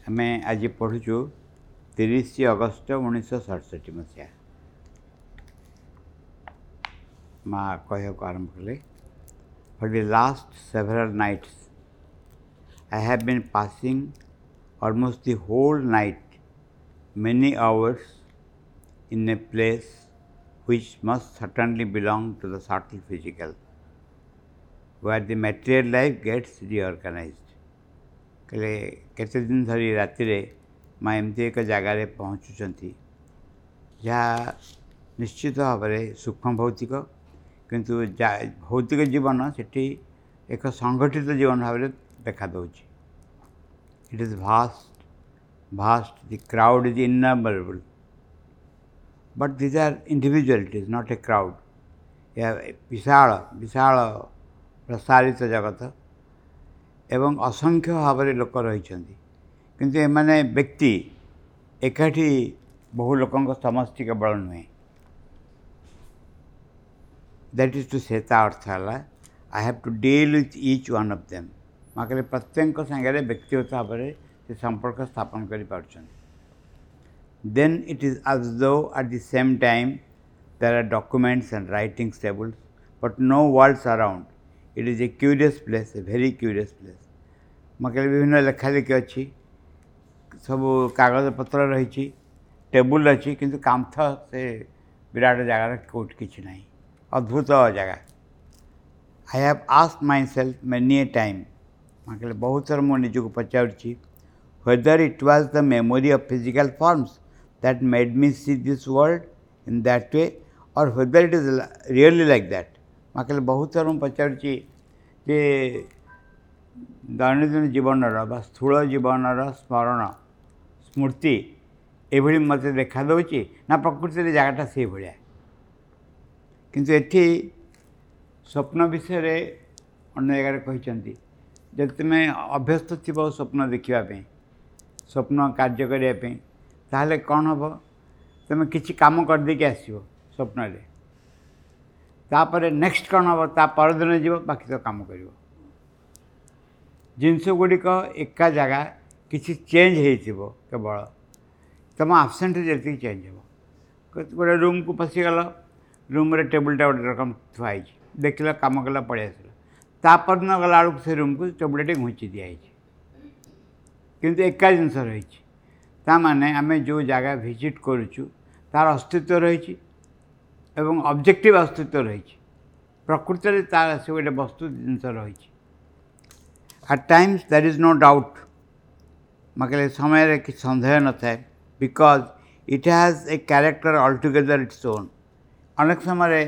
ଆମେ ଆଜି ପଢ଼ୁଛୁ 30 ଅଗଷ୍ଟ 1967 ମସିହା। ମା କହିବାକୁ ଆରମ୍ଭ କଲେ, "For the last several nights I have been passing almost the whole night, many hours, in a place which must certainly belong to the subtle physical, where the material life gets reorganized." କହିଲେ, କେତେ ଦିନ ଧରି ରାତିରେ ମା ଏମିତି ଏକ ଜାଗାରେ ପହଞ୍ଚୁଛନ୍ତି, ଯାହା ନିଶ୍ଚିତ ଭାବରେ ସୂକ୍ଷ୍ମ ଭୌତିକ, କିନ୍ତୁ ଭୌତିକ ଜୀବନ ସେଠି ଏକ ସଂଗଠିତ ଜୀବନ ଭାବରେ ଦେଖାଦେଉଛି। "It is vast, vast. The crowd is innumerable, but these are individualities, not a crowd." ଏହା ବିଶାଳ ବିଶାଳ ପ୍ରସାରିତ ଜଗତ ଏବଂ ଅସଂଖ୍ୟ ଭାବରେ ଲୋକ ରହିଛନ୍ତି, କିନ୍ତୁ ଏମାନେ ବ୍ୟକ୍ତି, ଏକାଠି ବହୁ ଲୋକଙ୍କ ସମଷ୍ଟି କେବଳ ନୁହେଁ। That is to say, ତା ଅର୍ଥ ହେଲା, "I have to deal with each one of them." ମା କହିଲେ, ପ୍ରତ୍ୟେକଙ୍କ ସାଙ୍ଗରେ ବ୍ୟକ୍ତିଗତ ଭାବରେ ସେ ସମ୍ପର୍କ ସ୍ଥାପନ କରିପାରୁଛନ୍ତି। "Then it is as though at the same time there are documents and writing tables, but no walls around. It is a curious place, a very curious place." ମା କହିଲେ, ବିଭିନ୍ନ ଲେଖାଲେଖି ଅଛି, ସବୁ କାଗଜପତ୍ର ରହିଛି, ଟେବୁଲ୍ ଅଛି, କିନ୍ତୁ କାନ୍ଥ ସେ ବିରାଟ ଜାଗାରେ କେଉଁଠି କିଛି ନାହିଁ। ଅଦ୍ଭୁତ ଜାଗା। "I have asked myself many a time," ମା କହିଲେ, ବହୁତ ଥର ମୁଁ ନିଜକୁ ପଚାରୁଛି, "whether it was the memory of physical forms that made me see this world in that way or whether it is really like that." ମା କହିଲେ, ବହୁତ ଥର ମୁଁ ପଚାରୁଛି ଯେ ଦୈନନ୍ଦିନ ଜୀବନର ବା ସ୍ଥୂଳ ଜୀବନର ସ୍ମରଣ ସ୍ମୃତି ଏଭଳି ମୋତେ ଦେଖାଦେଉଛି ନା ପ୍ରକୃତିରେ ଜାଗାଟା ସେଇଭଳିଆ। କିନ୍ତୁ ଏଠି ସ୍ୱପ୍ନ ବିଷୟରେ ଅନ୍ୟ ଜାଗାରେ କହିଛନ୍ତି, ଯଦି ତୁମେ ଅଭ୍ୟସ୍ତ ଥିବ ସ୍ୱପ୍ନ ଦେଖିବା ପାଇଁ, ସ୍ୱପ୍ନ କାର୍ଯ୍ୟ କରିବା ପାଇଁ, ତାହେଲେ କ'ଣ ହେବ? ତୁମେ କିଛି କାମ କରିଦେଇକି ଆସିବ ସ୍ୱପ୍ନରେ। ତାପରେ ନେକ୍ସଟ କ'ଣ ହେବ? ତା ପରଦିନ ଯିବ, ବାକି ତ କାମ କରିବ। ଜିନିଷ ଗୁଡ଼ିକ ଏକା ଜାଗା, କିଛି ଚେଞ୍ଜ ହେଇଥିବ, କେବଳ ତୁମ ଆବସେଣ୍ଟରେ ଯେତିକି ଚେଞ୍ଜ ହେବ। ଗୋଟେ ରୁମ୍କୁ ପଶିଗଲ, ରୁମ୍ରେ ଟେବୁଲଟା ଗୋଟେ ରକମ ଥୁଆ ହେଇଛି, ଦେଖିଲ, କାମ କଲ, ପଳେଇ ଆସିଲ। ତା ପରଦିନ ଗଲାବେଳକୁ ସେ ରୁମ୍କୁ ଟେବୁଲଟା ଟିକେ ଘୁଞ୍ଚି ଦିଆହେଇଛି, କିନ୍ତୁ ଏକା ଜିନିଷ ରହିଛି। ତା ମାନେ ଆମେ ଯେଉଁ ଜାଗା ଭିଜିଟ୍ କରୁଛୁ, ତାର ଅସ୍ତିତ୍ୱ ରହିଛି ଏବଂ ଅବଜେକ୍ଟିଭ୍ ଅସ୍ତିତ୍ୱ ରହିଛି। ପ୍ରକୃତରେ ତାର ସେ ଗୋଟେ ବସ୍ତୁ ଜିନିଷ ରହିଛି। "At times there is no doubt," ମା କହିଲେ, ସମୟରେ କିଛି ସନ୍ଦେହ ନଥାଏ, "because it has a character altogether its own." ଅନେକ ସମୟରେ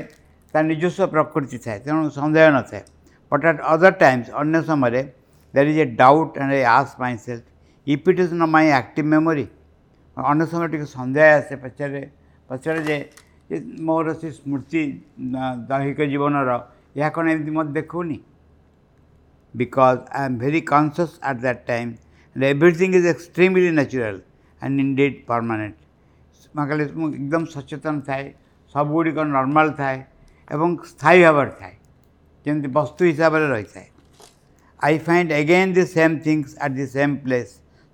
ତା ନିଜସ୍ୱ ପ୍ରକୃତି ଥାଏ, ତେଣୁ ସନ୍ଦେହ ନଥାଏ। "But at other times," ଅନ୍ୟ ସମୟରେ, "there is a doubt and I ask myself if it is not my active memory." ଅନ୍ୟ ସମୟରେ ଟିକେ ସନ୍ଦେହ ଆସେ, ପଚାରେ ଯେ ମୋର ସେ ସ୍ମୃତି ଦୈହିକ ଜୀବନର ଏହା କ'ଣ ଏମିତି ମୋତେ ଦେଖାଉନି? "Because I am very conscious at that time and everything is extremely natural and indeed permanent." ମା କହିଲେ, ମୁଁ ଏକଦମ ସଚେତନ ଥାଏ, ସବୁଗୁଡ଼ିକ ନର୍ମାଲ୍ ଥାଏ ଏବଂ ସ୍ଥାୟୀ ଭାବରେ ଥାଏ, ଯେମିତି ବସ୍ତୁ ହିସାବରେ ରହିଥାଏ। "I find again the same things at the same place,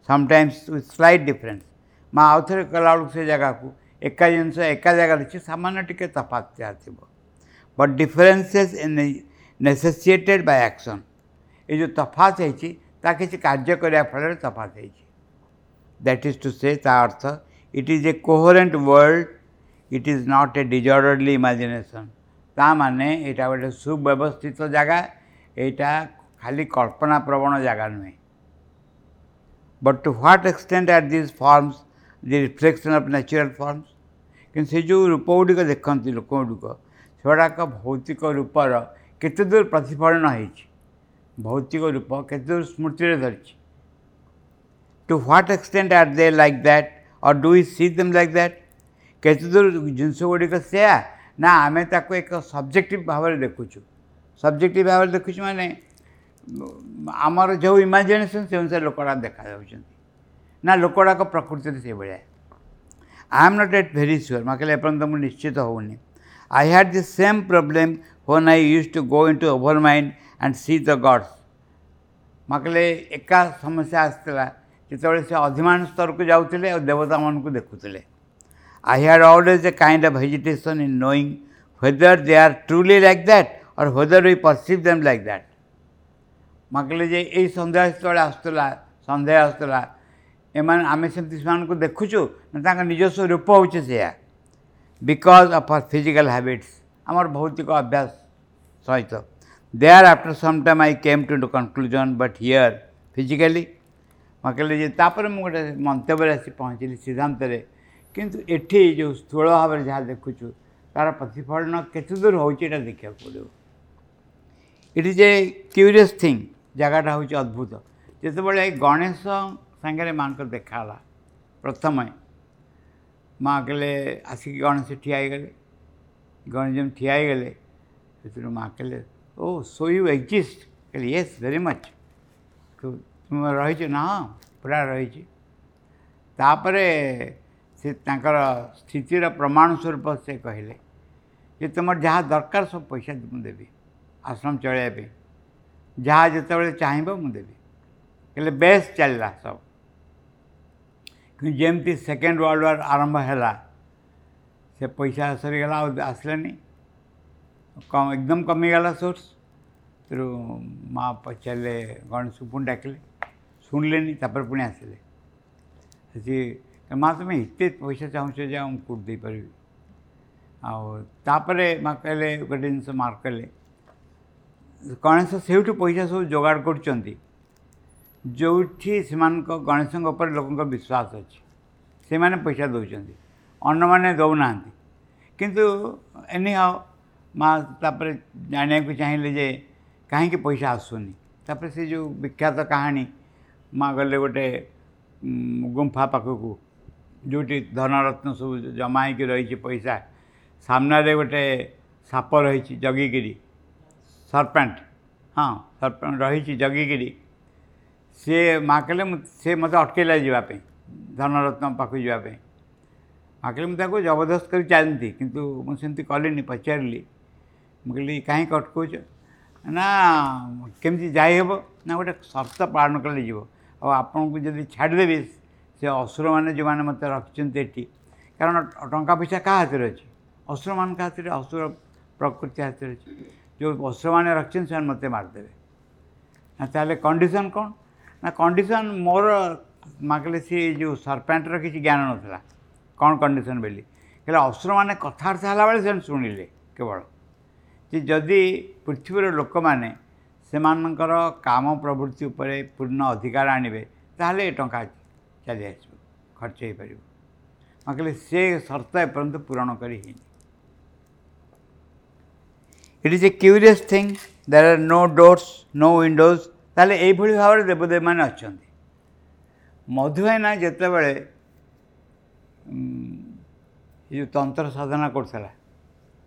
sometimes with slight difference." ମା ଆଉ ଥରେ ଗଲାବେଳକୁ ସେ ଜାଗାକୁ ଏକା ଜିନିଷ ଏକା ଜାଗାରେ ଅଛି, ସାମାନ୍ୟ ଟିକେ ତଫାତ୍ ଯାହା ଥିବ। "But differences in necessitated by action." ଏ ଯେଉଁ ତଫାତ ହେଇଛି, ତା କିଛି କାର୍ଯ୍ୟ କରିବା ଫଳରେ ତଫାତ ହେଇଛି। That is to say, ତା ଅର୍ଥ, "it is a coherent world. It is not a disorderly imagination." ତା ମାନେ ଏଇଟା ଗୋଟେ ସୁବ୍ୟବସ୍ଥିତ ଜାଗା, ଏଇଟା ଖାଲି କଳ୍ପନା ପ୍ରବଣ ଜାଗା ନୁହେଁ। "But to what extent are these forms the reflection of natural forms?" କିନ୍ତୁ ସେ ଯେଉଁ ରୂପ ଗୁଡ଼ିକ ଦେଖନ୍ତି ଲୋକ ଗୁଡ଼ିକ, ସେଗୁଡ଼ାକ ଭୌତିକ ରୂପର କେତେ ଦୂର ପ୍ରତିଫଳନ ହେଇଛି? ଭୌତିକ ରୂପ କେତେ ଦୂର ସ୍ମୃତିରେ ଧରିଛି? "To what extent are they like that, or do we see them like that?" କେତେ ଦୂର ଜିନିଷ ଗୁଡ଼ିକ ସେୟା ନା ଆମେ ତାକୁ ଏକ ସବଜେକ୍ଟିଭ୍ ଭାବରେ ଦେଖୁଛୁ? ସବଜେକ୍ଟିଭ୍ ଭାବରେ ଦେଖୁଛୁ ମାନେ ଆମର ଯେଉଁ ଇମାଜିନେସନ୍, ସେ ଅନୁସାରେ ଲୋକଗୁଡ଼ାକ ଦେଖାଯାଉଛନ୍ତି ନା ଲୋକଗୁଡ଼ାକ ପ୍ରକୃତିରେ ସେଇଭଳିଆ? "I am not yet very sure." ମା କହିଲେ, ଏପର୍ଯ୍ୟନ୍ତ ମୁଁ ନିଶ୍ଚିତ ହେଉନି। "I had the same problem when I used to go into overmind and see the gods." ମା କହିଲେ, ଏକା ସମସ୍ୟା ଆସିଥିଲା ଯେତେବେଳେ ସେ ଅଧିମାନ ସ୍ତରକୁ ଯାଉଥିଲେ ଆଉ ଦେବତାମାନଙ୍କୁ ଦେଖୁଥିଲେ। I had always a kind of hesitation in knowing whether they are truly like that or whether we perceive them like that. ମା କହିଲେ ଯେ ଏଇ ସନ୍ଦେହ ଯେତେବେଳେ ଆସୁଥିଲା, ସନ୍ଦେହ ଆସୁଥିଲା, ଏମାନେ ଆମେ ସେମିତି ସେମାନଙ୍କୁ ଦେଖୁଛୁ ନା ତାଙ୍କ ନିଜସ୍ୱ ରୂପ ହେଉଛି ସେଇଆ। Because of our physical habits, ଆମର ଭୌତିକ ଅଭ୍ୟାସ ସହିତ। There after some time I came to the conclusion, but here physically. ମା କହିଲେ ଯେ ତାପରେ ମୁଁ ଗୋଟେ ମନ୍ତବ୍ୟରେ ଆସି ପହଞ୍ଚିଲି ସିଦ୍ଧାନ୍ତରେ, କିନ୍ତୁ ଏଠି ଯେଉଁ ସ୍ଥୂଳ ଭାବରେ ଯାହା ଦେଖୁଛୁ ତା'ର ପ୍ରତିଫଳନ କେତେ ଦୂର ହେଉଛି ଏଇଟା ଦେଖିବାକୁ ପଡ଼ିବ। It is a curious thing, ଜାଗାଟା ହେଉଛି ଅଦ୍ଭୁତ। ଯେତେବେଳେ ଗଣେଶ ସାଙ୍ଗରେ ମାଆଙ୍କର ଦେଖା ହେଲା ପ୍ରଥମେ, ମା କହିଲେ ଆସିକି ଗଣେଶ ଠିଆ ହେଇଗଲେ। ଗଣେଶ ଯେମିତି ଠିଆ ହେଇଗଲେ ସେଥିରୁ ମା କହିଲେ ଓ ସୋ you exist. କହିଲେ ୟେସ୍ ଭେରି ମଚ୍। ତୁମେ ରହିଛ ନା? ହଁ ପୁରା ରହିଛି। ତାପରେ ସେ ତାଙ୍କର ସ୍ଥିତିର ପ୍ରମାଣ ସ୍ୱରୂପ ସେ କହିଲେ ଯେ ତୁମର ଯାହା ଦରକାର ସବୁ ପଇସା ମୁଁ ଦେବି ଆଶ୍ରମ ଚଳାଇବା ପାଇଁ, ଯାହା ଯେତେବେଳେ ଚାହିଁବ ମୁଁ ଦେବି। କହିଲେ ବେଶ ଚାଲିଲା ସବୁ। କିନ୍ତୁ ଯେମିତି ସେକେଣ୍ଡ ୱାର୍ଲଡ଼ ୱାର୍ ଆରମ୍ଭ ହେଲା ସେ ପଇସା ସରିଗଲା, ଆଉ ଆସିଲାନି, କମ୍ ଏକଦମ କମିଗଲା ସୋର୍ସ। ତେଣୁ ମା ପଚାରିଲେ, ଗଣେଶକୁ ପୁଣି ଡାକିଲେ, ଶୁଣିଲେନି। ତାପରେ ପୁଣି ଆସିଲେ, ସେ ମା ତୁମେ ଏତେ ପଇସା ଚାହୁଁଛ ଯେ ଆଉ ମୁଁ କେଉଁଠି ଦେଇପାରିବି। ଆଉ ତାପରେ ମା କହିଲେ ଗୋଟେ ଜିନିଷ ମାର୍କ କଲେ, ଗଣେଶ ସେଇଠୁ ପଇସା ସବୁ ଯୋଗାଡ଼ କରୁଛନ୍ତି ଯେଉଁଠି ସେମାନଙ୍କ ଗଣେଶଙ୍କ ଉପରେ ଲୋକଙ୍କ ବିଶ୍ୱାସ ଅଛି, ସେମାନେ ପଇସା ଦେଉଛନ୍ତି, ଅନ୍ୟମାନେ ଦେଉନାହାନ୍ତି। କିନ୍ତୁ ଏନିହାଉ ମା ତାପରେ ଜାଣିବାକୁ ଚାହିଁଲେ ଯେ କାହିଁକି ପଇସା ଆସୁନି। ତାପରେ ସେ ଯେଉଁ ବିଖ୍ୟାତ କାହାଣୀ, ମା ଗଲେ ଗୋଟେ ଗୁମ୍ଫା ପାଖକୁ ଯେଉଁଠି ଧନରତ୍ନ ସବୁ ଜମା ହେଇକି ରହିଛି ପଇସା, ସାମ୍ନାରେ ଗୋଟେ ସାପ ରହିଛି ଜଗିକିରି, ସରପେଣ୍ଟ, ହଁ ସରପେଣ୍ଟ ରହିଛି ଜଗିକିରି। ସିଏ ମା କହିଲେ ମୁଁ, ସେ ମୋତେ ଅଟକେଇଲା ଯିବା ପାଇଁ, ଧନରତ୍ନ ପାଖକୁ ଯିବା ପାଇଁ। ମା କହିଲେ ମୁଁ ତାକୁ ଜବରଦସ୍ତ କରି ଚାଲନ୍ତି, କିନ୍ତୁ ମୁଁ ସେମିତି କଲିନି, ପଚାରିଲି। ମୁଁ କହିଲି କାହିଁକି ଅଟକଉଛ? ନା କେମିତି ଯାଇହେବ? ନା ଗୋଟେ ସର୍ତ୍ତ ପାଳନ କଲେ ଯିବ, ଆଉ ଆପଣଙ୍କୁ ଯଦି ଛାଡ଼ିଦେବି ସେ ଅସୁରମାନେ ଯେଉଁମାନେ ମୋତେ ରଖିଛନ୍ତି ଏଠି, କାରଣ ଟଙ୍କା ପଇସା କାହା ହାତରେ ଅଛି? ଅସୁରମାନଙ୍କ ହାତରେ, ଅସୁର ପ୍ରକୃତି ହାତରେ ଅଛି। ଯେଉଁ ଅସୁରମାନେ ରଖିଛନ୍ତି ସେମାନେ ମୋତେ ମାରିଦେବେ। ନା ତାହେଲେ କଣ୍ଡିସନ୍ କ'ଣ? ନା କଣ୍ଡିସନ୍ ମୋର, ମା କହିଲେ ସେ ଯେଉଁ ସରପେଣ୍ଟର କିଛି ଜ୍ଞାନ ନଥିଲା କ'ଣ କଣ୍ଡିସନ୍ ବୋଲି। କହିଲେ ଅସୁରମାନେ କଥାବାର୍ତ୍ତା ହେଲାବେଳେ ସେମାନେ ଶୁଣିଲେ କେବଳ ଯେ ଯଦି ପୃଥିବୀର ଲୋକମାନେ ସେମାନଙ୍କର କାମ ପ୍ରବୃତ୍ତି ଉପରେ ପୂର୍ଣ୍ଣ ଅଧିକାର ଆଣିବେ ତାହେଲେ ଏ ଟଙ୍କା ଚାଲି ଆସିବ, ଖର୍ଚ୍ଚ ହେଇପାରିବ। ମା କହିଲେ ସେ ସର୍ତ୍ତ ଏପର୍ଯ୍ୟନ୍ତ ପୂରଣ କରି ହେଇନି। It is a curious thing, there are no doors, no windows. ତାହେଲେ ଏଇଭଳି ଭାବରେ ଦେବଦେବୀମାନେ ଅଛନ୍ତି। ମଧୁଭାଇନା ଯେତେବେଳେ ଏ ଯେଉଁ ତନ୍ତ୍ର ସାଧନା କରୁଥିଲା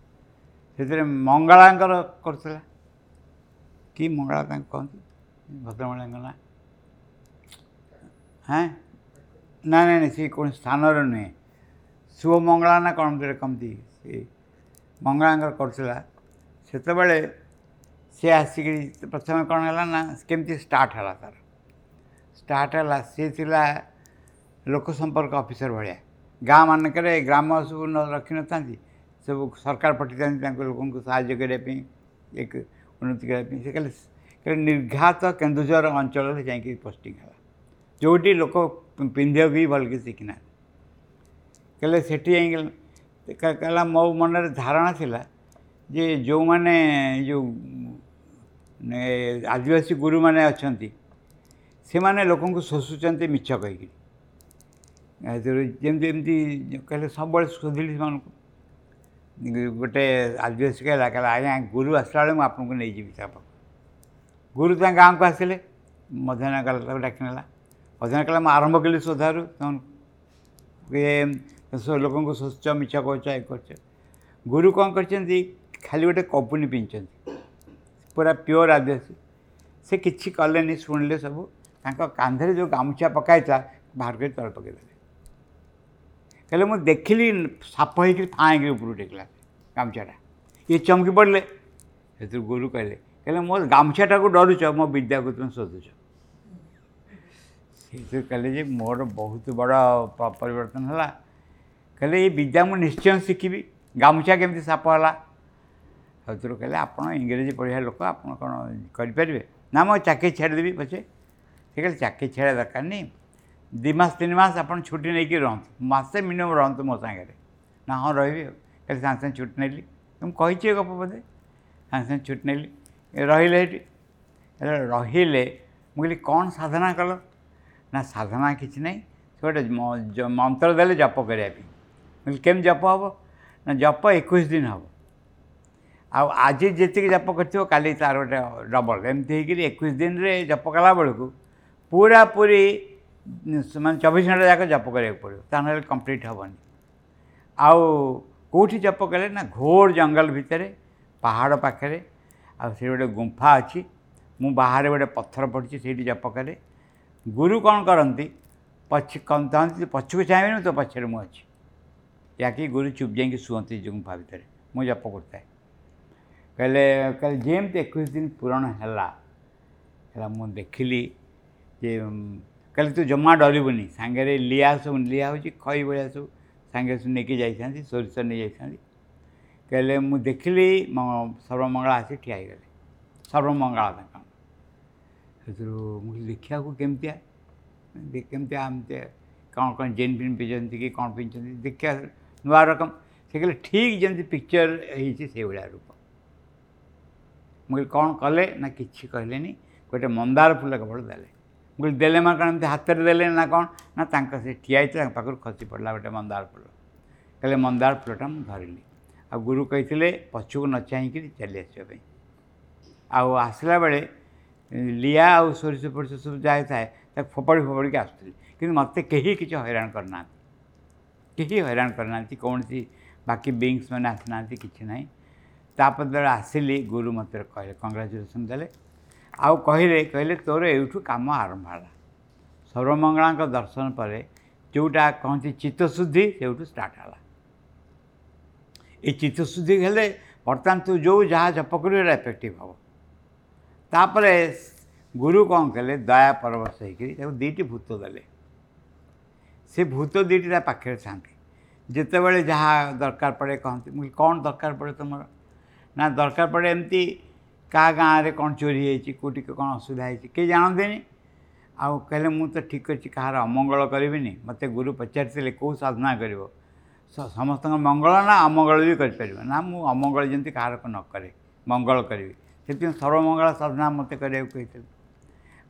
ସେଥିରେ ମଙ୍ଗଳାଙ୍କର କରୁଥିଲା, କି ମଙ୍ଗଳା ତାଙ୍କୁ କହନ୍ତି ଭଦ୍ରମହିଳାଙ୍କ ନାଁ? ହେଁ ନା ନାଇଁ ନାଇଁ, ସେ କୌଣସି ସ୍ଥାନର ନୁହେଁ, ଶିବ ମଙ୍ଗଳା ନା କ'ଣ କହନ୍ତି, ସେ ମଙ୍ଗଳାଙ୍କର କରୁଥିଲା। ସେତେବେଳେ ସେ ଆସିକିରି ପ୍ରଥମେ କ'ଣ ହେଲା ନା କେମିତି ଷ୍ଟାର୍ଟ ହେଲା ତା'ର, ଷ୍ଟାର୍ଟ ହେଲା ସିଏ ଥିଲା ଲୋକ ସମ୍ପର୍କ ଅଫିସର ଭଳିଆ। ଗାଁ ମାନଙ୍କରେ ଗ୍ରାମ ସବୁ ରଖିନଥାନ୍ତି, ସବୁ ସରକାର ପଠେଇଥାନ୍ତି ତାଙ୍କ ଲୋକଙ୍କୁ ସାହାଯ୍ୟ କରିବା ପାଇଁ, ଏକ ଉନ୍ନତି କରିବା ପାଇଁ। ସେ ଖାଲି ନିର୍ଘାତ କେନ୍ଦୁଝର ଅଞ୍ଚଳରେ ଯାଇକି ପୋଷ୍ଟିଂ ହେଲା, ଯେଉଁଠି ଲୋକ ପିନ୍ଧିବାକୁ ବି ଭଲକି ଶିଖିନାହାନ୍ତି। କହିଲେ ସେଠି ଯାଇକି କହିଲା ମୋ ମନରେ ଧାରଣା ଥିଲା ଯେ ଯେଉଁମାନେ ଯେଉଁ ଆଦିବାସୀ ଗୁରୁମାନେ ଅଛନ୍ତି ସେମାନେ ଲୋକଙ୍କୁ ଶୋଷୁଛନ୍ତି ମିଛ କହିକିରି। ଯେମିତି ଏମିତି କହିଲେ ସବୁବେଳେ ଶୋଧିଲି ସେମାନଙ୍କୁ। ଗୋଟେ ଆଦିବାସୀ କହିଲା, କହିଲା ଆଜ୍ଞା ଗୁରୁ ଆସିଲା ବେଳେ ମୁଁ ଆପଣଙ୍କୁ ନେଇଯିବି ତା ପାଖକୁ। ଗୁରୁ ତାଙ୍କ ଗାଁକୁ ଆସିଲେ, ମଧ୍ୟାହ୍ନ କାଳ ତାକୁ ଡାକି ନେଲା। ମଧ୍ୟାହ୍ନ କାଳ ମୁଁ ଆରମ୍ଭ କଲି ଶୋଧାରୁ, ଲୋକଙ୍କୁ ଶୋଷୁଛ, ମିଛ କହୁଛ, ଏ କରୁଛ। ଗୁରୁ କ'ଣ କରିଛନ୍ତି, ଖାଲି ଗୋଟେ କପୁନି ପିନ୍ଧିଛନ୍ତି, ପୁରା ପିଓର ଆଦିବାସୀ। ସେ କିଛି କଲେନି, ଶୁଣିଲେ ସବୁ। ତାଙ୍କ କାନ୍ଧରେ ଯେଉଁ ଗାମୁଛା ପକାଇଥିଲା ବାହାର କରି ତଳେ ପକାଇଦେଲେ। କହିଲେ ମୁଁ ଦେଖିଲି ସାପ ହେଇକିରି ଫାଁ ହେଇକିରି ଉପରକୁ ଟେକିଲା ଗାମୁଛାଟା। ଇଏ ଚମକି ପଡ଼ିଲେ। ସେଥିରୁ ଗୁରୁ କହିଲେ, କହିଲେ ମୋ ଗାମୁଛାଟାକୁ ଡରୁଛ, ମୋ ବିଦ୍ୟାକୁ ତୁମେ ଶୋଧୁଛ। ସେଇଥିରୁ କହିଲେ ଯେ ମୋର ବହୁତ ବଡ଼ ପରିବର୍ତ୍ତନ ହେଲା। କହିଲେ ଏଇ ବିଦ୍ୟା ମୁଁ ନିଶ୍ଚୟ ଶିଖିବି, ଗାମୁଛା କେମିତି ସାପ ହେଲା। ସେଥିରୁ କହିଲେ ଆପଣ ଇଂରେଜୀ ପଢ଼ିବା ଲୋକ, ଆପଣ କ'ଣ କରିପାରିବେ? ନା ମୁଁ ଚାକିରି ଛାଡ଼ିଦେବି ପଛେ। ସେ କହିଲେ ଚାକିରି ଛାଡ଼ିବା ଦରକାର ନାହିଁ, 2 ମାସ 3 ମାସ ଆପଣ ଛୁଟି ନେଇକି ରହନ୍ତୁ, ମାସେ ମିନିମମ୍ ରହନ୍ତୁ ମୋ ସାଙ୍ଗରେ। ନା ହଁ ରହିବି। କହିଲେ ସାଙ୍ଗେ ସାଙ୍ଗେ ଛୁଟି ନେଲି, ମୁଁ କହିଛି ଏ ଗପ ବୋଧେ। ସାଙ୍ଗେ ସାଙ୍ଗେ ଛୁଟି ନେଲି, ରହିଲେ ଏଠି ରହିଲେ। ମୁଁ କହିଲି କ'ଣ ସାଧନା କଲ? ନା ସାଧନା କିଛି ନାହିଁ, ସେ ଗୋଟେ ମନ୍ତ୍ର ଦେଲେ ଜପ କରିବା ପାଇଁ। ମୁଁ କହିଲି କେମିତି ଜପ ହେବ? ନା ଜପ 21 ଦିନ ହେବ, ଆଉ ଆଜି ଯେତିକି ଜପ କରିଥିବ କାଲି ତାର ଗୋଟେ ଡବଲ୍, ଏମିତି ହେଇକିରି 21 ଦିନରେ ଜପ କଲା ବେଳକୁ ପୁରାପୁରି ମାନେ 24 ଘଣ୍ଟା ଯାକ ଜପ କରିବାକୁ ପଡ଼ିବ, ତା ନହେଲେ କମ୍ପ୍ଲିଟ୍ ହେବନି। ଆଉ କେଉଁଠି ଜପ କଲେ? ନା ଘୋର ଜଙ୍ଗଲ ଭିତରେ, ପାହାଡ଼ ପାଖରେ, ଆଉ ସେଠି ଗୋଟେ ଗୁମ୍ଫା ଅଛି, ମୁଁ ବାହାରେ ଗୋଟେ ପଥର ପଡ଼ିଛି ସେଇଠି ଜପ କରେ। ଗୁରୁ କ'ଣ କରନ୍ତି, ପଛକୁ ଚାହିଁବେନି, ତୋ ପଛରେ ମୁଁ ଅଛି। ୟାକି ଗୁରୁ ଚୁପ୍ ଯାଇକି ଶୁଅନ୍ତି ଗୁମ୍ଫା ଭିତରେ, ମୁଁ ଜପ କରୁଥାଏ। କହିଲେ କହିଲେ ଯେମିତି 21 ଦିନ ପୂରଣ ହେଲା, ହେଲା ମୁଁ ଦେଖିଲି ଯେ କହିଲେ ତୁ ଜମା ଡରିବୁନି, ସାଙ୍ଗରେ ଲିଆ ସବୁ, ଲିଆ ହେଉଛି ଖଇ ଭଳିଆ ସବୁ ସାଙ୍ଗରେ ସବୁ ନେଇକି ଯାଇଥାନ୍ତି, ସୋରିଷ ନେଇଯାଇଥାନ୍ତି। କହିଲେ ମୁଁ ଦେଖିଲି ସର୍ବମଙ୍ଗଳା ଆସି ଠିଆ ହେଇଗଲେ, ସର୍ବମଙ୍ଗଳା ତାଙ୍କ। ସେଥିରୁ ମୁଁ ଦେଖିବାକୁ କେମିତିଆ କେମିତିଆ ଏମିତି କ'ଣ କ'ଣ ଜିନ୍ ଫିନ୍ ପିନ୍ଧନ୍ତି କି କ'ଣ ପିନ୍ଧୁଛନ୍ତି, ଦେଖିବା ନୂଆ ରକମ। ସେ କହିଲେ ଠିକ୍ ଯେମିତି ପିକ୍ଚର ହେଇଛି ସେଇଭଳିଆ ରୂପ। ମୁଁ କହିଲି କ'ଣ କଲେ? ନା କିଛି କହିଲେନି, ଗୋଟେ ମନ୍ଦାର ଫୁଲ କେବଳ ଦେଲେ। ମୁଁ କହିଲି ଦେଲେ ମାନେ କ'ଣ ଏମିତି ହାତରେ ଦେଲେ ନା କ'ଣ? ନା ତାଙ୍କ ସେ ଠିଆ ହେଇଥିଲା ତାଙ୍କ ପାଖରୁ ଖସି ପଡ଼ିଲା ଗୋଟେ ମନ୍ଦାର ଫୁଲ। କହିଲେ ମନ୍ଦାର ଫୁଲଟା ମୁଁ ଧରିଲି। ଆଉ ଗୁରୁ କହିଥିଲେ ପଛକୁ ନ ଚାହିଁକିରି ଚାଲି ଆସିବା ପାଇଁ। ଆଉ ଆସିଲା ବେଳେ ଲିଆ ଆଉ ସୋରିଷ ଫୋରିଷ ସବୁ ଯାହା ଥାଏ ତାକୁ ଫୋପାଡ଼ି ଫୋପାଡ଼ିକି ଆସୁଥିଲି, କିନ୍ତୁ ମୋତେ କେହି କିଛି ହଇରାଣ କରିନାହାନ୍ତି, କେହି ହଇରାଣ କରିନାହାନ୍ତି, କୌଣସି ବାକି ବିଙ୍ଗସ୍ ମାନେ ଆସିନାହାନ୍ତି, କିଛି ନାହିଁ। ତାପରେ ଯେତେବେଳେ ଆସିଲି ଗୁରୁ ମୋତେ କହିଲେ କଂଗ୍ରାଚୁଲେସନ୍ ଦେଲେ, ଆଉ କହିଲେ କହିଲେ ତୋର ଏଇଠୁ କାମ ଆରମ୍ଭ ହେଲା। ସର୍ବମଙ୍ଗଳାଙ୍କ ଦର୍ଶନ ପରେ ଯେଉଁଟା କହନ୍ତି ଚିତ୍ତଶୁଦ୍ଧି, ସେଇଠୁ ଷ୍ଟାର୍ଟ ହେଲା। ଏଇ ଚିତ୍ତଶୁଦ୍ଧି ହେଲେ ବର୍ତ୍ତମାନ ତୁ ଯେଉଁ ଯାହା ଜପ କରିବୁ ସେଇଟା ଏଫେକ୍ଟିଭ୍ ହେବ। ତାପରେ ଗୁରୁ କ'ଣ କଲେ, ଦୟା ପରବଶ ହେଇକରି ତାକୁ 2ଟି ଭୂତ ଦେଲେ। ସେ ଭୂତ 2ଟି ତା ପାଖରେ ଥାନ୍ତି, ଯେତେବେଳେ ଯାହା ଦରକାର ପଡ଼େ କହନ୍ତି। ମୁଁ କ'ଣ ଦରକାର ପଡ଼େ ତୁମର? ନା ଦରକାର ପଡ଼େ ଏମିତି କାହା ଗାଁରେ କ'ଣ ଚୋରି ହେଇଛି, କେଉଁଠି କ'ଣ ଅସୁବିଧା ହେଇଛି, କେହି ଜାଣନ୍ତିନି। ଆଉ କହିଲେ ମୁଁ ତ ଠିକ୍ ଅଛି କାହାର ଅମଙ୍ଗଳ କରିବିନି। ମୋତେ ଗୁରୁ ପଚାରିଥିଲେ କେଉଁ ସାଧନା କରିବ, ସମସ୍ତଙ୍କ ମଙ୍ଗଳ ନା ଅମଙ୍ଗଳ ବି କରିପାରିବ? ନା ମୁଁ ଅମଙ୍ଗଳ ଯେମିତି କାହାର ନ କରେ, ମଙ୍ଗଳ କରିବି, ସେଥିପାଇଁ ସର୍ବମଙ୍ଗଳ ସାଧନା ମୋତେ କରିବାକୁ କହିଥିଲେ।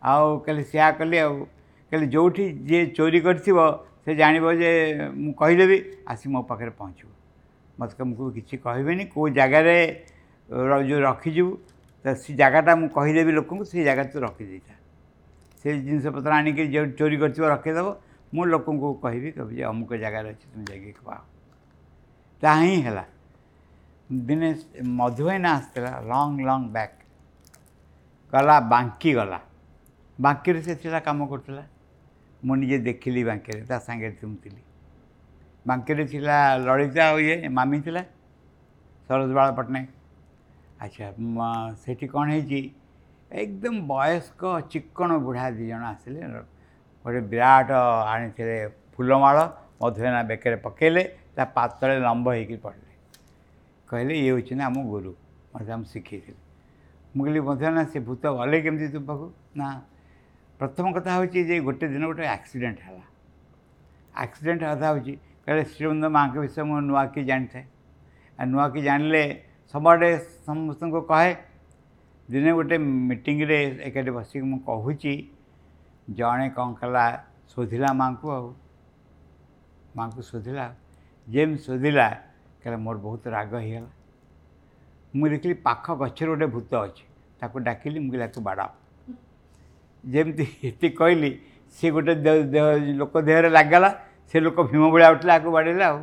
ଆଉ କହିଲେ ସେୟା କଲି। ଆଉ କହିଲେ ଯେଉଁଠି ଯିଏ ଚୋରି କରିଥିବ ସେ ଜାଣିବ ଯେ ମୁଁ କହିଦେବି, ଆସି ମୋ ପାଖରେ ପହଞ୍ଚିବ। ମୋତେ ମୁଁ କିଛି କହିବିନି, କେଉଁ ଜାଗାରେ ଯେଉଁ ରଖିଯିବୁ ତ ସେ ଜାଗାଟା ମୁଁ କହିଦେବି ଲୋକଙ୍କୁ, ସେଇ ଜାଗାରେ ତୁ ରଖିଦେଇଥା। ସେ ଜିନିଷପତ୍ର ଆଣିକି ଯେଉଁ ଚୋରି କରିଥିବ ରଖିଦେବ, ମୁଁ ଲୋକଙ୍କୁ କହିବି, କହିବି ଯେ ଅମୁକ ଜାଗାରେ ଅଛି, ତୁମେ ଯାଇକି ପାଅ। ତାହା ହିଁ ହେଲା। ଦିନେ ମଧୁଭାଇନା ଆସିଥିଲା ଲଙ୍ଗ୍ ଲଙ୍ଗ୍ ବ୍ୟାକ୍, ଗଲା ବାଙ୍କି ଗଲା, ବାଙ୍କିରେ ସେ ଥିଲା କାମ କରୁଥିଲା। ମୁଁ ନିଜେ ଦେଖିଲି ବାଙ୍କିରେ, ତା ସାଙ୍ଗରେ ମୁଁ ଥିଲି। ବାଙ୍କିରେ ଥିଲା ଲଳିତା ଆଉ ଇଏ ମାମି ଥିଲା, ସରୋଜବାଳା ପଟ୍ଟନାୟକ। ଆଚ୍ଛା, ସେଠି କ'ଣ ହେଇଛି, ଏକଦମ ବୟସ୍କ ଚିକ୍କଣ ବୁଢ଼ା 2 ଜଣ ଆସିଲେ, ଗୋଟେ ବିରାଟ ଆଣିଥିଲେ ଫୁଲମାଳ, ମଧୁଭାଇନା ବେକରେ ପକାଇଲେ, ତା ପାତଳେ ଲମ୍ବ ହେଇକି ପଡ଼ିଲେ। କହିଲେ ଇଏ ହେଉଛନ୍ତି ଆମ ଗୁରୁ, ମୋତେ ଆମ ଶିଖେଇଥିଲେ। ମୁଁ କହିଲି ମଧୁଭାଇନା ସେ ଭୂତ ଗଲେ କେମିତି ତୁମ ପାଖକୁ? ନା ପ୍ରଥମ କଥା ହେଉଛି ଯେ ଗୋଟେ ଦିନ ଗୋଟେ ଆକ୍ସିଡେଣ୍ଟ ହେଲା। ଆକ୍ସିଡେଣ୍ଟ କଥା ହେଉଛି, କହିଲେ ଶ୍ରୀବୃନ୍ଦ ମାଆଙ୍କ ବିଷୟ ମୁଁ ନୂଆ କି ଜାଣିଥାଏ, ଆଉ ନୂଆ କି ଜାଣିଲେ ସବୁଆଡ଼େ ସମସ୍ତଙ୍କୁ କହେ। ଦିନେ ଗୋଟେ ମିଟିଂରେ ଏକାଠି ବସିକି ମୁଁ କହୁଛି, ଜଣେ କ'ଣ କଲା ଶୋଧିଲା ମାଆଙ୍କୁ, ଆଉ ମାଆଙ୍କୁ ଶୋଧିଲା। ଯେମିତି ଶୋଧିଲା କହିଲା ମୋର ବହୁତ ରାଗ ହେଇଗଲା। ମୁଁ ଦେଖିଲି ପାଖ ଗଛରେ ଗୋଟେ ଭୂତ ଅଛି, ତାକୁ ଡାକିଲି, ମୁଁ କହିଲି ଆକୁ ବାଡ଼ାଅ। ଯେମିତି ଏତିକି କହିଲି ସେ ଗୋଟେ ଲୋକ ଦେହରେ ଲାଗିଗଲା, ସେ ଲୋକ ଭୀମ ଭଳିଆ ଉଠିଲା, ଆକୁ ବାଡ଼େଇଲା। ଆଉ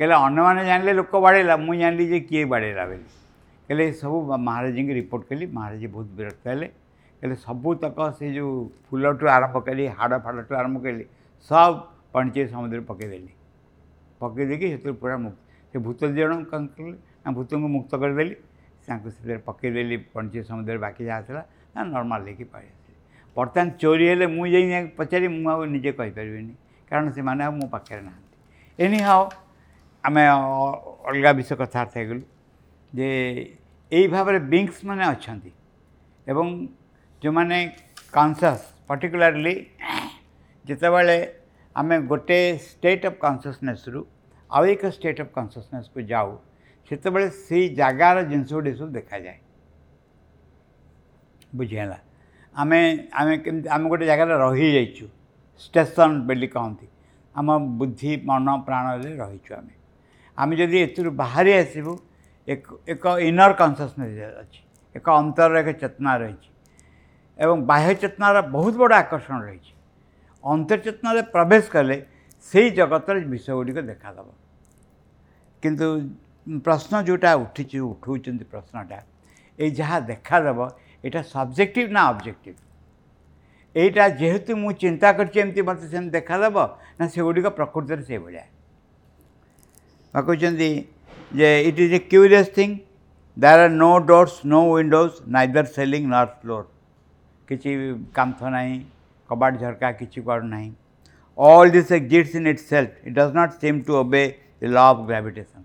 କହିଲେ ଅନ୍ୟମାନେ ଜାଣିଲେ ଲୋକ ବାଡ଼େଇଲା, ମୁଁ ଜାଣିଲି ଯେ କିଏ ବାଡ଼େଇଲା ବୋଲି। କହିଲେ ସବୁ ମହାରାଜଙ୍କୁ ରିପୋର୍ଟ କଲି, ମହାରାଜ ବହୁତ ବିରକ୍ତ ହେଲେ। କହିଲେ ସବୁତକ ସେ ଯେଉଁ ଫୁଲଠୁ ଆରମ୍ଭ କରି ହାଡ଼ ଫାଡ଼ଠୁ ଆରମ୍ଭ କଲି ସବୁ ପଣ୍ଡିଚେରୀ ସମୁଦ୍ରରେ ପକାଇଦେଲି। ପକାଇ ଦେଇକି ସେଥିରୁ ପୁରା ମୁକ୍ତ। ସେ ଭୂତ 2 ଜଣ କ'ଣ କଲେ ନା ଭୂତଙ୍କୁ ମୁକ୍ତ କରିଦେଲି, ତାଙ୍କୁ ସେଥିରେ ପକାଇଦେଲି ପଣ୍ଡିଚେରୀ ସମୁଦ୍ରରେ। ବାକି ଯାହା ଥିଲା ନା ନର୍ମାଲ୍ ହେଇକି ପଳେଇ ଆସିଲି। ବର୍ତ୍ତମାନ ଚୋରି ହେଲେ ମୁଁ ଯାଇ ପଚାରି ମୁଁ ଆଉ ନିଜେ କହିପାରିବିନି, କାରଣ ସେମାନେ ଆଉ ମୋ ପାଖରେ ନାହାନ୍ତି। ଏନି ହାଉ ଆମେ ଅଲଗା ବିଷୟ କଥାବାର୍ତ୍ତା ହେଇଗଲୁ ଯେ ଏଇ ଭାବରେ ବିଙ୍ଗସ୍ ମାନେ ଅଛନ୍ତି ଏବଂ ଯେଉଁମାନେ କନସିୟସ୍, ପର୍ଟିକୁଲାରଲି ଯେତେବେଳେ ଆମେ ଗୋଟେ ଷ୍ଟେଟ୍ ଅଫ୍ କନସିୟସନେସ୍ରୁ ଆଉ ଏକ ଷ୍ଟେଟ୍ ଅଫ୍ କନସିୟସନେସ୍କୁ ଯାଉ, ସେତେବେଳେ ସେଇ ଜାଗାର ଜିନିଷ ଗୁଡ଼ିକ ସବୁ ଦେଖାଯାଏ। ବୁଝିହେଲା? ଆମେ ଆମେ କେମିତି ଆମେ ଗୋଟେ ଜାଗାରେ ରହିଯାଇଛୁ, ଷ୍ଟେସନ୍ ବୋଲି କହନ୍ତି, ଆମ ବୁଦ୍ଧି ମନ ପ୍ରାଣରେ ରହିଛୁ ଆମେ। ଆମେ ଯଦି ଏଥିରୁ ବାହାରି ଆସିବୁ, ଏକ ଇନର୍ କନସିୟସନେସ୍ ଅଛି, ଏକ ଅନ୍ତରର ଏକ ଚେତନା ରହିଛି ଏବଂ ବାହ୍ୟ ଚେତନାର ବହୁତ ବଡ଼ ଆକର୍ଷଣ ରହିଛି। ଅନ୍ତର୍ଚେତନାରେ ପ୍ରବେଶ କଲେ ସେଇ ଜଗତର ବିଷୟ ଗୁଡ଼ିକ ଦେଖାଦେବ। କିନ୍ତୁ ପ୍ରଶ୍ନ ଯେଉଁଟା ଉଠିଛି, ଉଠଉଛନ୍ତି ପ୍ରଶ୍ନଟା, ଏଇ ଯାହା ଦେଖାଦେବ ଏଇଟା ସବଜେକ୍ଟିଭ୍ ନା ଅବଜେକ୍ଟିଭ୍? ଏଇଟା ଯେହେତୁ ମୁଁ ଚିନ୍ତା କରିଛି ଏମିତି ମୋତେ ସେମିତି ଦେଖାଦେବ ନା ସେଗୁଡ଼ିକ ପ୍ରକୃତରେ ସେଇଭଳିଆ? ବା କହୁଛନ୍ତି ଯେ it is a curious thing, there are no doors, no windows, neither ceiling nor floor. କିଛି କାନ୍ଥ ନାହିଁ, କବାଟ ଝରକା କିଛି କୁଆଡ଼ୁ ନାହିଁ। All this exists in itself, it does not seem to obey the law of gravitation.